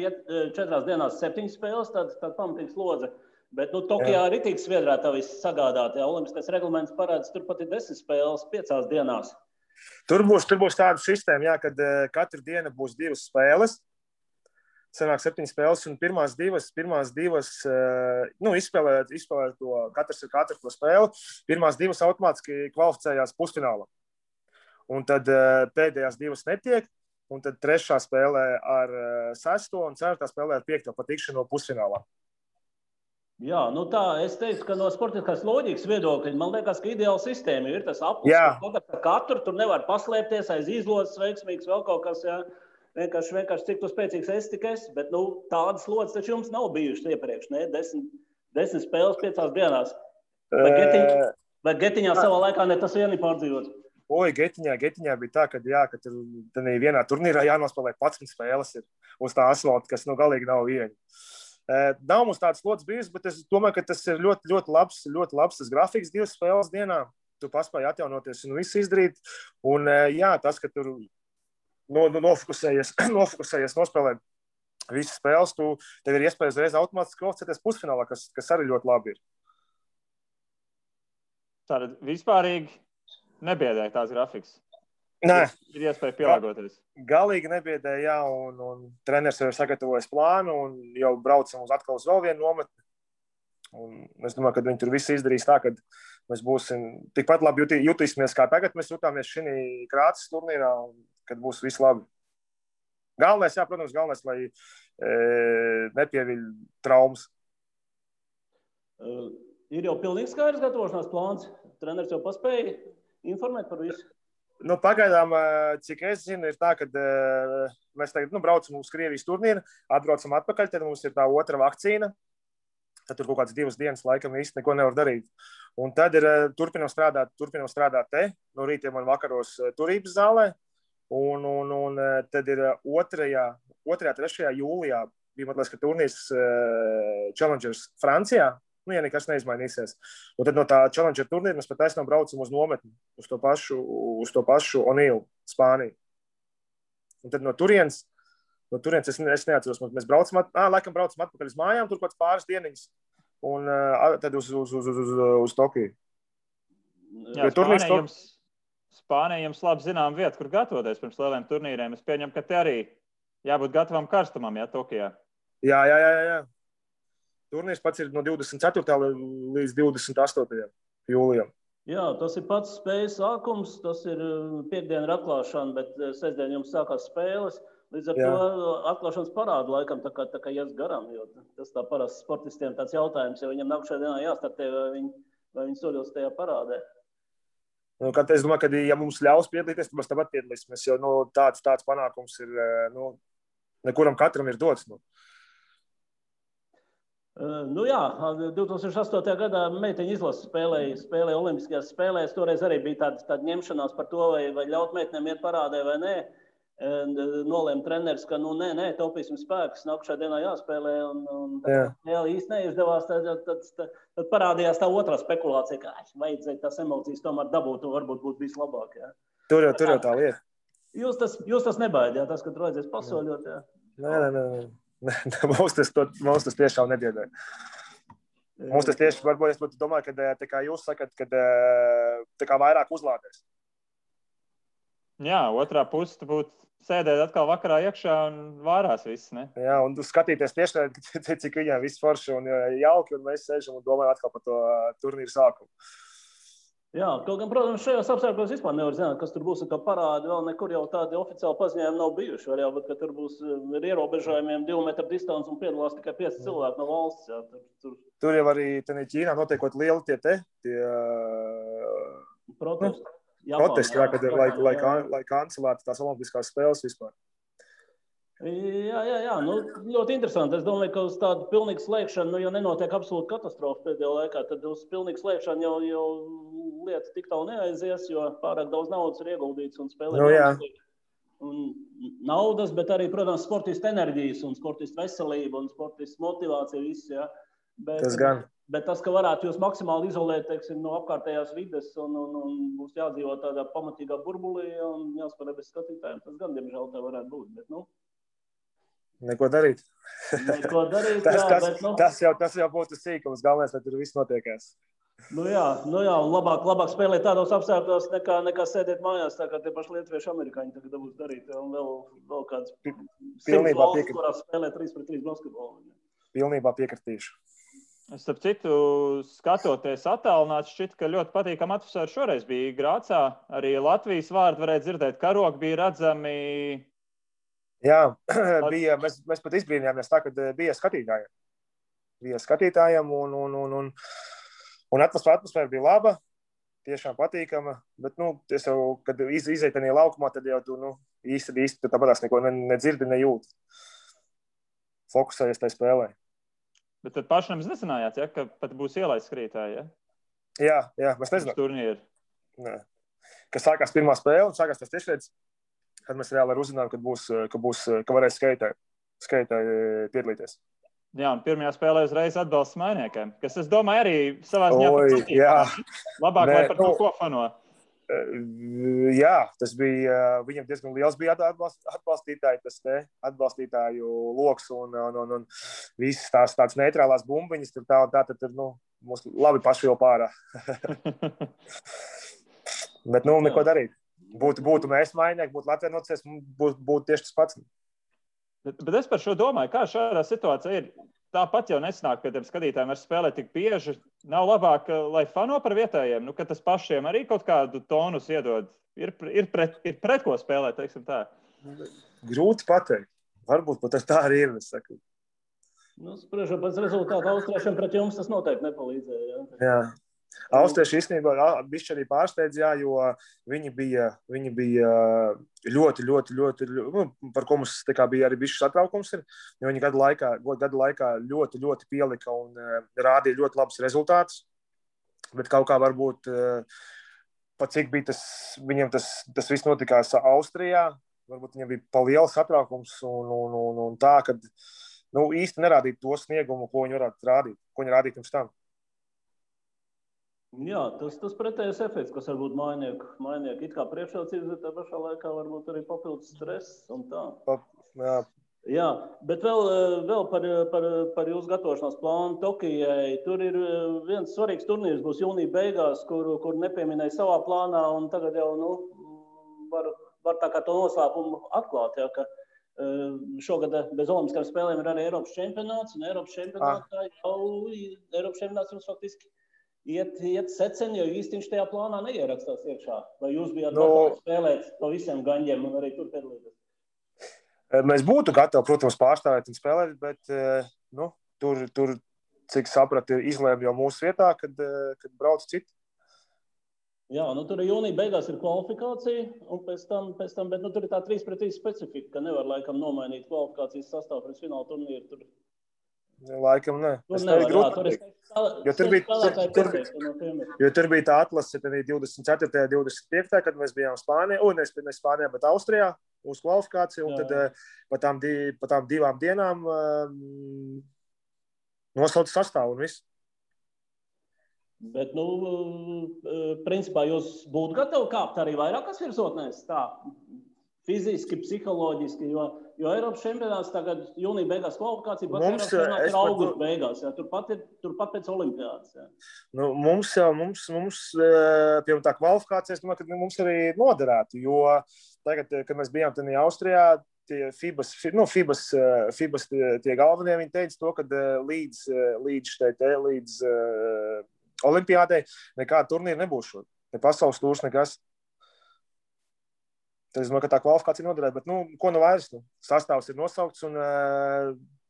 [SPEAKER 3] 7 spēles, tad pamatīgs lodze. Bet Tokijā ritīgi sviedrā tā viss sagādāt. Jā, olimpiskais reglaments parāds, turpat ir 10 spēles 5 dienās.
[SPEAKER 2] Tur būs tāda sistēma, jā, kad katru dienu būs 2 spēles. Sanāk 7 spēles, un pirmās divas izspēlē to, katrs ar katru to spēli. Pirmās 2 automātiski kvalificējās pusfinālā. Un tad pēdējās 2 netiek, un tad 3. spēlē ar 6. un 4. spēlē ar 5. patikšanu pusfinālā.
[SPEAKER 3] Jā, tā, es teiktu, ka no sportiskās loģikas viedokļa, man liekas, ka ideāla sistēma ir tas aplis, ka katru tur nevar paslēpties aiz izlozes veiksmīgs vēl kaut kas, jā. Vienkārši cik tu spēcīgs esi, tik esi, bet tādas lodzes taču jums nav bijušas iepriekš, ne? 10 spēles 5 dienās. Vai Getiņā savā laikā ne tas vieni pārdzīvots?
[SPEAKER 2] Oi, Getiņā bija tā, ka tur vienā turnīrā jānospēlē 11 spēles ir uz tā asfalta, kas galīgi nav viegli. Nav mums tāds lods bijis, bet es domāju, ka tas ir ļoti, ļoti labs tas grafiks 2 spēles dienā. Tu paspēji atjaunoties un visu izdarīt. Un jā, tas, ka tur nofokusējies, nospēlēt visas spēles, tev ir iespēja uzreiz automātiski kvalificēties pusfinālā, kas arī ļoti labi ir.
[SPEAKER 1] Tātad vispārīgi nebiedēja tās grafiks.
[SPEAKER 2] Nē.
[SPEAKER 1] Ir iespēja pielāgoties.
[SPEAKER 2] Galīgi nebiedēja, jā, un treneris jau ir sagatavojis plānu, un jau braucam atkal uz vēl vienu nometni. Un es domāju, ka viņi tur visu izdarīs tā, ka mēs būsim tikpat labi jutīsimies, kā tagad mēs jutāmies šī Krāces turnīrā, un kad būs viss labi. Protams, lai nepieviļ traumas.
[SPEAKER 3] Ir jau pilnīgi skaidrs gatavošanās plāns. Treneris jau paspēja informēt par visu.
[SPEAKER 2] Pagaidām, cik es zinu, ir tā, ka mēs tagad braucam uz Krievijas turnīru, atbraucam atpakaļ, tad mums ir tā 2. vakcīna. Tad tur kaut kādas 2 dienas laikam īsti neko nevar darīt. Un tad turpinam strādāt te, no rītiem un vakaros turības zālē. Un tad ir 2. 3. jūlijā bija mazliet, ka turnīrs Challengers Francijā. Ja nekas neizmainīsies. Un tad no tā Challenger turnīra mēs pat aizsnām braucam uz nometni, uz to pašu Onīlu, Spāniju. Un tad no turienes es neatceros, mēs braucam atpakaļ uz mājām, tur kāds pāris dieniņas, un tad uz Tokiju.
[SPEAKER 1] Jā, Spānija jums labi zinām vietu, kur gatavoties pirms lieliem turnīriem. Es pieņemu, ka te arī jābūt gatavam karstumam, jā, Tokijā.
[SPEAKER 2] Jā. Turnīrs pats ir no 24. līdz 28. jūlijam.
[SPEAKER 3] Jā, tas ir pats spējas sākums, tas ir piekdiena ir atklāšana, bet sestdien jums sākās spēles. Līdz ar to atklāšanas parādu laikam tā kā ies garām, jo tas tā parasti sportistiem tāds jautājums, jo viņam nākušajā dienā jāstartē, vai viņi soļos tajā parādē.
[SPEAKER 2] Es domāju, ka ja mums ļaus piedalīties, tad mēs tāpat piedalīsimies, jo tāds panākums ir, nekuram katram ir dots.
[SPEAKER 3] Jā, 2008. gadā meiteņu izlase spēlēja olimpiskajās spēlēs. Toreiz arī bija tāda ņemšanās par to, vai ļaut meitenēm iet parādē vai nē. Nolēma treneris, ka nē, taupīsim spēkus, nākušā dienā jāspēlē. Jā, īsti neizdevās, tad parādījās tā otrā spekulācija, ka vajadzēja tās emocijas tomēr dabūt un varbūt būtu bijis labāk. Jā.
[SPEAKER 2] Tur jau tā lieta.
[SPEAKER 3] Jūs tas nebaidījāt, tas, ka tur vajadzēs pasoļot? Jā.
[SPEAKER 2] Nē. Mums tas tiešām nebiedē. Mums tas tieši varbūt es domāju, ka tā kā jūs sakat, ka tā kā vairāk uzlādēs.
[SPEAKER 1] Jā, otrā puse būtu sēdēt atkal vakarā iekšā un vārās viss, ne?
[SPEAKER 2] Jā, un skatīties tieši, cik viņiem viss forši un jauki, un mēs sēžam un domājam atkal par to turnīru sākumu.
[SPEAKER 3] Jā, kaut gan, protams, šajos apstākļos vispār nevar zināt, kas tur būs, un kā parādi vēl nekur jau tādi oficiāli paziņojumi nav bijuši. Var jau būt, ka tur būs ar ierobežojumiem 2 metru distance un piedalās tikai 5 cilvēki no valsts. Jā,
[SPEAKER 2] tur jau arī Ķīnā notiekot lieli tie protesti, lai kancelētu tās olimpiskās spēles vispār.
[SPEAKER 3] Jā. Ļoti interesanti. Es domāju, ka uz tādu pilnīgu slēgšanu, ja nenotiek absolūta katastrofa pēdējā laikā, tad uz pilnīgu slēgšanu jau lieta tik tālu neaizies, jo pārāk daudz naudas ir ieguldīts un spēlē. Un naudas, bet arī, protams, sportistu enerģijas un sportistu veselība un sportistu motivācija viss, jā. Bet tas, ka varētu jūs maksimāli izolēt, teiksim, no apkārtējās vides un būs jādzīvo tādā pamatīgā burbulī un jāspēlē bez skatītājiem, tas gan, diemžēl, tā varētu būt, bet,
[SPEAKER 2] Neko darīt.
[SPEAKER 3] Neko darīt, bet...
[SPEAKER 2] Tas jau būtu sīkums, galvenais, lai tur viss notiekās.
[SPEAKER 3] Nu jā, un labāk spēlēt tādos apstākļos, nekā sēdēt mājās, tā kā tie paši lietuvieši amerikāņi tagad dabūs darīt. Un vēl kāds 100 valsts, kurās spēlē 3-3 basketbolu.
[SPEAKER 2] Pilnībā piekritīšu.
[SPEAKER 1] Starp citu, skatoties attālināti, šķiet, ka ļoti patīkama atmosfēra šoreiz bija Grācā. Arī Latvijas vārdu varēja dzirdēt, karogi bija redzami.
[SPEAKER 2] Jā, bija, mēs pat izbrīnījāmies tā, kad bija skatītājiem. Un atmosfēra bija laba, tiešām patīkama, bet, es jau, kad iziet tajā laukumā, tad jau tu, īsti tāpatās neko nedzirdi, nejūti. Fokusējies tajā spēlē.
[SPEAKER 1] Bet tad pašam nezinājāt, ja, ka pat būs ielaists skrītāji,
[SPEAKER 2] ja? Jā, mēs nezinām.
[SPEAKER 1] Turnīri.
[SPEAKER 2] Kad sākās pirmā spēle un sākās tas tiešreiz, kad mēs reāli uzzinājām, ka varēs skaitāji piedalīties.
[SPEAKER 1] Jā, un pirmajā spēlē uzreiz atbalsts mainiekiem, kas, es domāju, arī savā ziņā
[SPEAKER 2] patīk.
[SPEAKER 1] Labāk, lai par to ko fano.
[SPEAKER 2] Jā, tas bija, viņam diezgan liels bija atbalstītāju loks un visas tās tādas neitrālās bumbiņas, tad mums labi paši jau pārā. Bet, neko darīt. Būtu mēs mainieki, būtu Latvija nocies, būtu tieši tas pats.
[SPEAKER 1] Bet es par šo domāju, kā šādā situācijā ir. Tāpat jau nesanāk pie tiem skatītājiem ar spēlēt tik bieži. Nav labāk, lai fano par vietējiem, ka tas pašiem arī kaut kādu tonus iedod. Ir pret ko spēlēt, teiksim tā.
[SPEAKER 2] Grūti pateikt. Varbūt pat tā arī ir, es saku.
[SPEAKER 3] Spriežot pēc rezultātu austriešiem pret jums tas noteikti nepalīdzēja.
[SPEAKER 2] Jā. Austrieši īstenībā bišķi arī pārsteidz, jo viņi bija ļoti, par ko mums bija arī bišķi satraukums, jo viņi gadu laikā ļoti, ļoti pielika un rādīja ļoti labus rezultātus, bet kaut kā varbūt, pat cik bija viņiem tas viss notikās Austrijā, varbūt viņiem bija pa liels satraukums un tā, kad īsti nerādīt to sniegumu, ko viņi varētu rādīt, ko viņi rādīja pirms tam.
[SPEAKER 3] Jā, tas pretējais efekts, kas varbūt mainieku it kā priekšrocības, bet tā pašā laikā varbūt arī papildus stress un tā. Jā, bet vēl par jūsu gatavošanās plānu Tokijai. Tur ir viens svarīgs turnīrs, būs jūnija beigās, kur nepieminēja savā plānā, un tagad jau var tā kā to noslēpumu atklāt, ja, ka šogad bez olimpiskām spēlēm ir arī Eiropas čempionāts, un Eiropas čempionāts jums faktiski iet seceni, jo īsti viņš tajā plānā neierakstās iekšā. Vai jūs bijāt gatavi spēlēt pa visiem gaņģiem un arī tur piedalīties?
[SPEAKER 2] Mēs būtu gatavi, protams, pārstāvēt un spēlēt, bet tur cik sapratu, izlēma jau mūsu vietā, kad brauc citi.
[SPEAKER 3] Jā, tur jūnija beigās ir kvalifikācija, un pēc tam bet tur ir tā 3-3 specifika, ka nevar laikam nomainīt kvalifikācijas sastāvu pret fināla turnīru tur.
[SPEAKER 2] Laikam ne. Tur bija tā atlase 24. 25. kad mēs bijām Spānijā, ne Spānijā, bet Austrijā uz kvalifikāciju, un tad pa tām 2 dienām nosauca sastāvu un viss.
[SPEAKER 3] Bet, principā jūs būtu gatavi kāpt arī vairākas virsotnēs, tā, fiziski, psiholoģiski, jo Eiropas čempionāts tagad jūnija beigās kvalifikācija, pats Eiropas čempionāts ir augusta beigās, jā, turpat pēc olimpiādas. Jā.
[SPEAKER 2] Mums, piemēram, tā kvalifikācija, es domāju, ka mums arī noderētu, jo tagad, kad mēs bijām tajā Austrijā, tie FIBAS tie galvenie, viņi teica to, ka līdz olimpiādei nekāda turnīra nebūs šodien. Ne pasaules tūrs, nekas. Tad es domāju, ka tā kvalifikācija noderētu, bet, ko vairs, sastāvs ir nosaukts un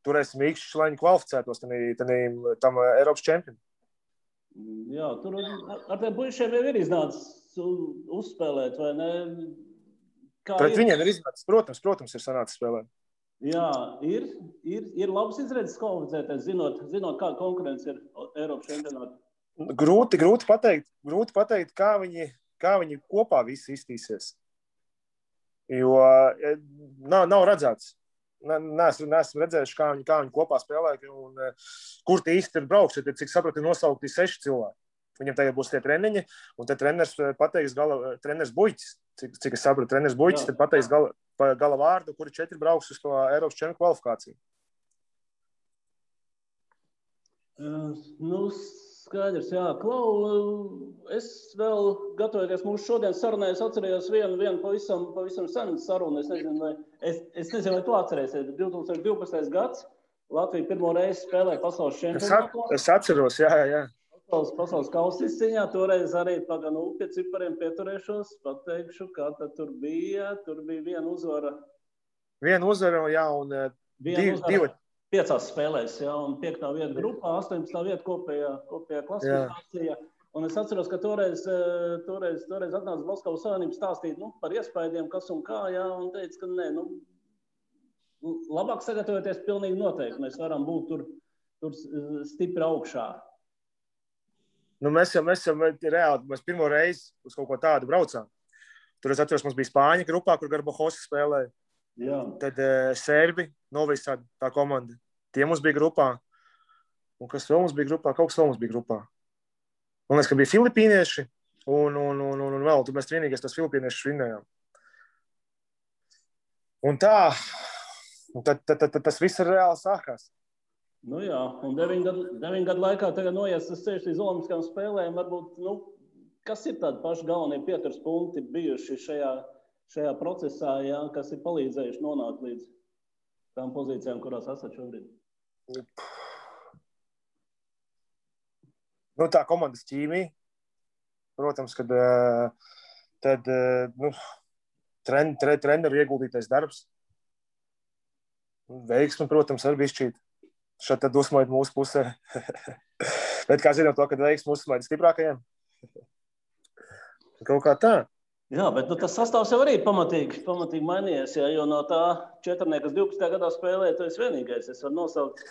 [SPEAKER 2] turēsim īkšķus, lai viņi kvalificētos tam Eiropas čempionu.
[SPEAKER 3] Jā, tur ar tiem puišiem jau ir iznācis uzspēlēt, vai ne?
[SPEAKER 2] Pret viņiem ir iznācis, protams, ir sanācis spēlēt.
[SPEAKER 3] Jā, ir labs izredzes kvalificēties, zinot kāda konkurence ir Eiropas čempionāta.
[SPEAKER 2] Grūti pateikt, kā viņi kopā visi iztīsies. Jo nav redzēts. Neesmu redzējuši, kā viņi kopā spēlē un kur tie īsti ir brauks. Cik sapratu, nosaukti 6 cilvēki. Viņam tagad būs tie treniņi, un te treneris pateiks treneris Buļķis. Cik es sapratu, treneris Buļķis, tad pateiks pa gala vārdu, kuri 4 brauks uz to Eiropas čempionu kvalifikāciju.
[SPEAKER 3] Nu, skaidrs, jā. Klau, es vēl gatavoties mūsu šodienas sarunai, es atcerējos vienu pavisam senu sarunu. Es nezinu, vai tu atcerēsies, bet 2012. gads Latvija pirmo reizi spēlēja pasaules čempionātā.
[SPEAKER 2] Es atceros, jā.
[SPEAKER 3] Pasaules kausa izcīņā, toreiz arī pie cipariem pieturēšos, pateikšu, kā tad tur bija viena uzvara.
[SPEAKER 2] Viena uzvara, jā, un divi.
[SPEAKER 3] 5 spēlēs, jā, un 5. vieta grupā, 18. vieta kopējā klasifikācijā. Un es atceros, ka toreiz atnāca Basketbola Savienība stāstīt par iespējām, kas un kā, jā, un teica, ka nē, labāk sagatavoties pilnīgi noteikti. Mēs varam būt tur stipri augšā.
[SPEAKER 2] Mēs reāli, mēs pirmo reizi uz kaut ko tādu braucām. Tur es atceros, mums bija Spāņa grupā, kur Garbajosa spēlēja.
[SPEAKER 3] Jā.
[SPEAKER 2] Tad Serbi, Novisad, tā komanda. Tie mums bija grupā. Un kas vēl mums bija grupā? Kaut kas vēl mums bija grupā. Man liekas, ka bija filipīnieši un vēl. Tur mēs vienīgais tos filipīniešus vinnējām. Un tā. Un tad tas viss reāli sākās.
[SPEAKER 3] Nu jā, un 9 gadu laikā tagad noies tas ceļš līdz Olimpiskajām spēlēm. Varbūt, kas ir tādi paši galvenie pieturas punkti bijuši šajā procesā, jā, kas ir palīdzējuši nonākt līdz tām pozīcijām, kurās esat šobrīd?
[SPEAKER 2] Tā komandas ķīmija. Protams, kad treneru ieguldītais darbs. Veiksmi, protams, arī bišķīt. Šeit tad uzsmaid mūsu pusē. Bet kā zinām to, kad veiksmi uzsmaid stiprākajiem? Kaut kā tā.
[SPEAKER 3] Jā, bet tas sastāvs jau arī pamatīgi mainījies, jo no tā 4, kas 12. gadā spēlēja, tu esi vienīgais, es varu nosaukt.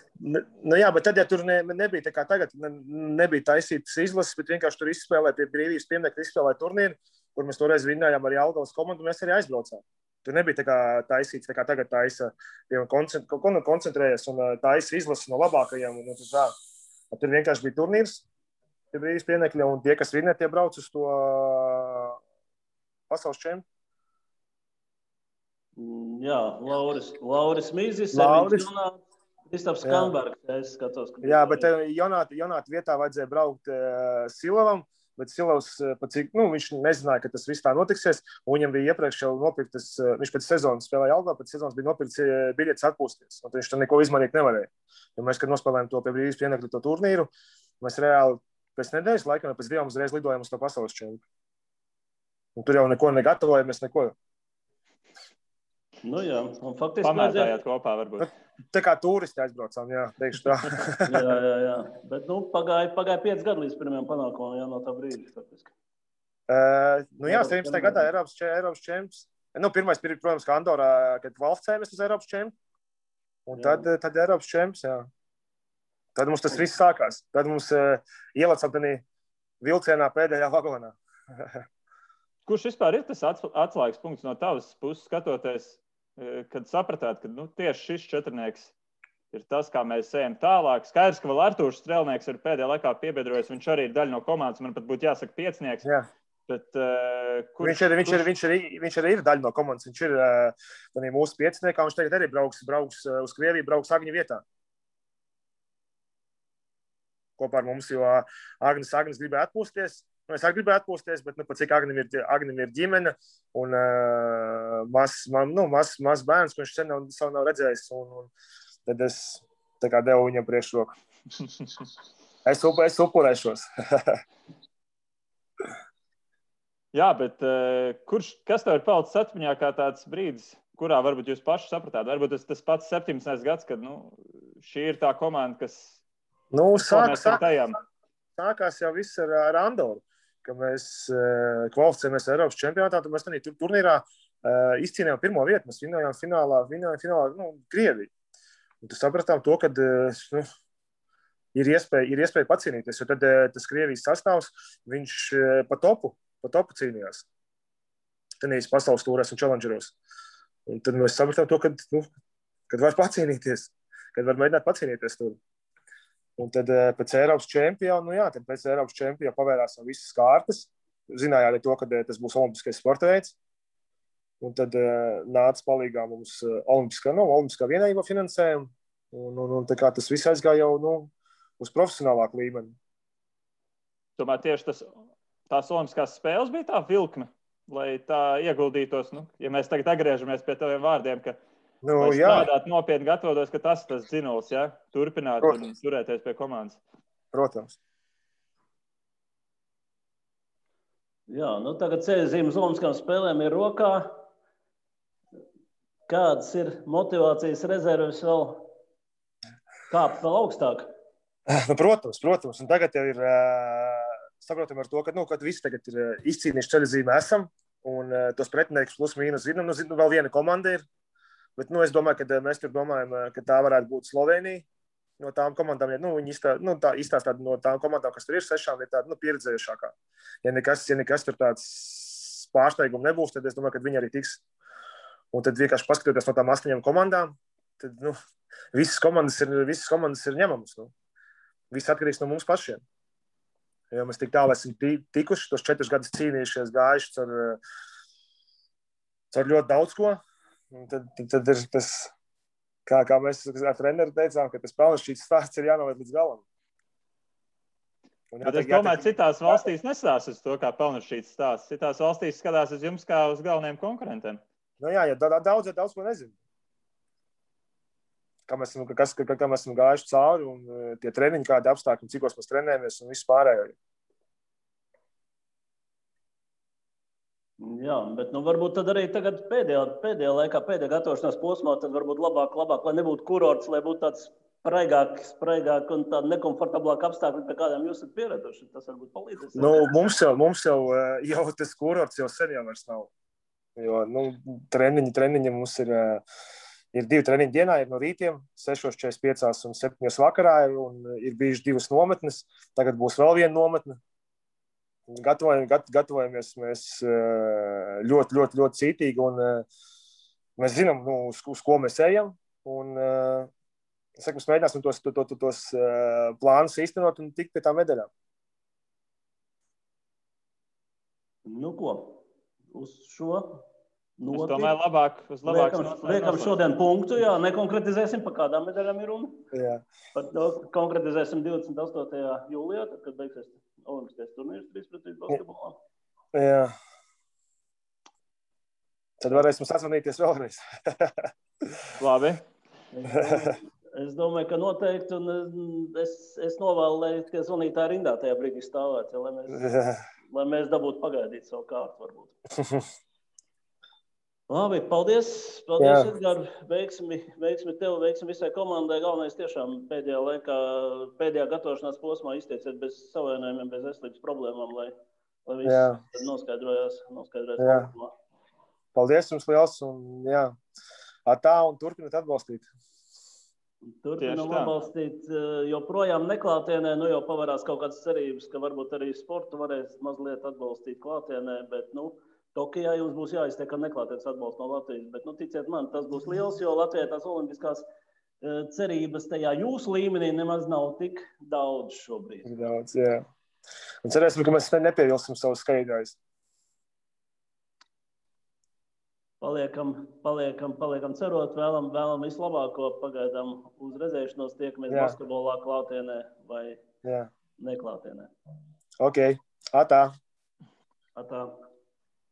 [SPEAKER 2] Jā, bet tad, ja tur nebija tā kā tagad, nebija taisītas izlases, bet vienkārši tur izspēlēja pie brīvības pieminiekta, izspēlēja turnīru, kur mēs toreiz vinnējām ar Jelgavas komandu, un mēs arī aizbraucām. Tur nebija tā kā taisīts, tā kā tagad taisa, koncentrējies un taisa izlases no labākajiem. Un tā. Tur vienkārši bija turnīrs pie brīvības pieminiekļa, un tie, kas vinnē, tie brauc uz to pasaules čempionu.
[SPEAKER 3] Jā, Lauris Mīzis, Kristaps Kambergs, es skatos.
[SPEAKER 2] Jā, bet Jonāta vietā vajadzēja braukt Silavam, bet Silavs, viņš nezināja, ka tas viss tā notiksies, un viņam bija iepriekš jau nopirktas, viņš pēc sezonas spēlēja Jelgavā, pēc sezonas bija nopirkts biļetes atpūsties, un viņš tam neko izmainīt nevarēja. Jo mēs, kad nospēlējām to pie brīvības pieminiekļa to turnīru, mēs reāli pēc nedēļas laikam, pēc 2 uzreiz lidojām uz to pasaules čempionu. Un tur jau neko negatavojamies, neko.
[SPEAKER 3] Nu jā, un faktiski...
[SPEAKER 1] Pamētājāt kopā varbūt.
[SPEAKER 2] Tā kā turisti aizbraucām, jā, teikšu tā.
[SPEAKER 3] jā. Bet, pagāja 5 gadu līdz pirmajam panākumam, jā, no tā brīdi, faktiski.
[SPEAKER 2] 17. gadā Eiropas čempions. Pirmais, protams, kā Andorā, kad kvalificējamies uz Eiropas čempionu. Un tad Eiropas čempions, jā. Tad mums tas viss sākās. Tad mums ielecām tādā vilcienā pēdējā vagonā.
[SPEAKER 1] Kurš vispār ir tas atslēgas punkts no tavas puses skatoties, kad sapratāt, ka tieši šis četrnieks ir tas, kā mēs ejam tālāk? Skaidrs, ka vēl Artūrs Strelnieks ir pēdējā laikā piebiedrojies, viņš arī ir daļa no komandas, man pat būtu jāsaka piecnieks.
[SPEAKER 2] Jā.
[SPEAKER 1] Bet,
[SPEAKER 2] viņš arī ir daļa no komandas, viņš ir mūsu piecniekā, viņš tagad arī brauks uz Krieviju, brauks Agņa vietā. Kopā ar mums, jo Agnes gribēja atpūsties. Es arī gribēju atpūsties, bet pat cik Agnim ir ģimene un mazs bērns, ko viņš sen nav redzējis. Un tad es tā kā devu viņam priekšroku. Es upurēšos.
[SPEAKER 1] Jā, bet kas tev ir palicis atmiņā kā tāds brīdis, kurā varbūt jūs paši sapratāt? Varbūt tas pats 17. gads, kad šī ir tā komanda, kas
[SPEAKER 2] sākās jau viss ar Andoru. Ka mēs kvalificējamies Eiropas čempionātā, tad mēs turnīrā izcīnījām pirmo vietu. Mēs vinnējām finālā Krieviju. Un tad sapratām to, ka ir iespēja pacīnīties, jo tad tas Krievijas sastāvs, viņš pa topu cīnījās. Tenīs pasaules tūrēs un challengeros. Un tad mēs sapratām to, kad var pacīnīties, kad var mēģināt pacīnīties tur. Un tad pēc Eiropas čempiona, pavērās visas kārtas. Zināja arī to, ka tas būs olimpiskais sporta veids. Un tad nāca palīgā mums olimpiskā vienība finansējuma. Un tā kā tas viss aizgāja jau uz profesionālāku līmeni.
[SPEAKER 1] Tomēr tieši tās olimpiskās spēles bija tā vilkme, lai tā ieguldītos. Ja mēs tagad atgriežamies pie taviem vārdiem, ka lai strādāt nopietni gatavotos, ka tas dzinulis, ja? Turpināt un turēties pie komandas.
[SPEAKER 2] Protams.
[SPEAKER 3] Jā, tagad ceļzīmes olimpiskām spēlēm ir rokā. Kādas ir motivācijas rezerves vēl kāpt vēl augstāk?
[SPEAKER 2] Protams. Un tagad jau ir saprotam ar to, ka visi tagad ir izcīnījuši ceļzīmi esam, un tos pretiniekus plus mīnus zinām. Vēl viena komanda ir, bet es domāju, ka mēs tur domājam, ka tā varētu būt Slovenija. No tām komandām, viņi izstāstā no tām komandām, kas tur ir 6, ir tāda pieredzējušākā. Ja nekas tur tāds pārsteigums nebūs, tad es domāju, ka viņi arī tiks. Un tad vienkārši paskatoties no tām 8 komandām, tad visas komandas ir ņemamas. Viss atkarīgs no mums pašiem. Jo mēs tik tālu esam tikuši, tos 4 gadus cīnījušies, gājuši caur ļoti daudz ko. Un tad ir tas. Kā mēs ar treneru teicām, ka tas pelnšķīts stāsts ir jānovērt līdz galam.
[SPEAKER 1] Bet es domāju, citās valstīs nestāsta uz to, kā pelnšķīts stāsts. Citās valstīs skatās uz jums kā uz galvenajiem konkurentiem.
[SPEAKER 2] Jā, daudz ko nezinu. Kā mēs esam gājuši cauri un tie treniņi, kādi apstākļi, cikos mēs trenējamies un viss pārējo.
[SPEAKER 3] Jā, bet varbūt tad arī tagad pēdējā laikā, pēdējā gatavošanās posmā, tad varbūt labāk, lai nebūtu kurorts, lai būtu tāds spraigāk un tāda nekomfortablāka apstākļi, pie kādiem jūs esat pieraduši. Tas varbūt palīdzēs.
[SPEAKER 2] Mums jau tas kurorts jau sen jau vairs nav. Jo, treniņi mums ir 2 treniņi dienā, ir no rītiem, 6:45 un 7 vakarā, un ir bijuši 2 nometnes. Tagad būs vēl viena nometne. Gatavojamies mēs ļoti cītīgi, un mēs zinām, uz ko mēs ejam. Un, mēs mēģināsim tos plānus īstenot un tikt pie tām medaļām.
[SPEAKER 3] Ko? Uz šo noti.
[SPEAKER 1] Es domāju, labāk
[SPEAKER 3] liekam šodien punktu, jā, nekonkretizēsim, pa kādām medaļām ir runa.
[SPEAKER 2] Jā.
[SPEAKER 3] Konkretizēsim 28. jūlijā, tad, kad beigsies olimpiskais turnīrs 3-3 basketbolā.
[SPEAKER 2] Jā. Tad varēsim sazvanīties vēlreiz.
[SPEAKER 1] Labi.
[SPEAKER 3] Es domāju, ka noteikti, un es novēlu, lai tie zvanītāji rindā tajā brīdī stāvētu, lai mēs dabūtu pagaidīt savu kārtu varbūt. Labi, paldies Edgar, veiksmi tev, veiksmi visai komandai. Galvenais tiešām pēdējā gatavošanās posmā izteiciet bez savainojumiem, bez veselības problēmām, lai viss noskaidrojās.
[SPEAKER 2] Paldies jums liels, un un turpināt atbalstīt.
[SPEAKER 3] Turpinām atbalstīt, joprojām neklātienē, jau pavarās kaut kādas cerības, ka varbūt arī sportu varēs mazliet atbalstīt klātienē, bet, Tokijā jums būs jāiztiek ar neklātienes atbalstu no Latvijas, bet, ticiet man, tas būs liels, jo Latvijai tās olimpiskās cerības tajā jūsu līmenī nemaz nav tik daudz šobrīd.
[SPEAKER 2] Daudz, jā. Un cerēsim, ka mēs nepievilsim savus skaidrājus.
[SPEAKER 3] Paliekam cerot, vēlam visu labāko, pagaidām uz redzēšanos, tiekamies basketbolā klātienē vai neklātienē.
[SPEAKER 2] Ok, atā.
[SPEAKER 3] Atā.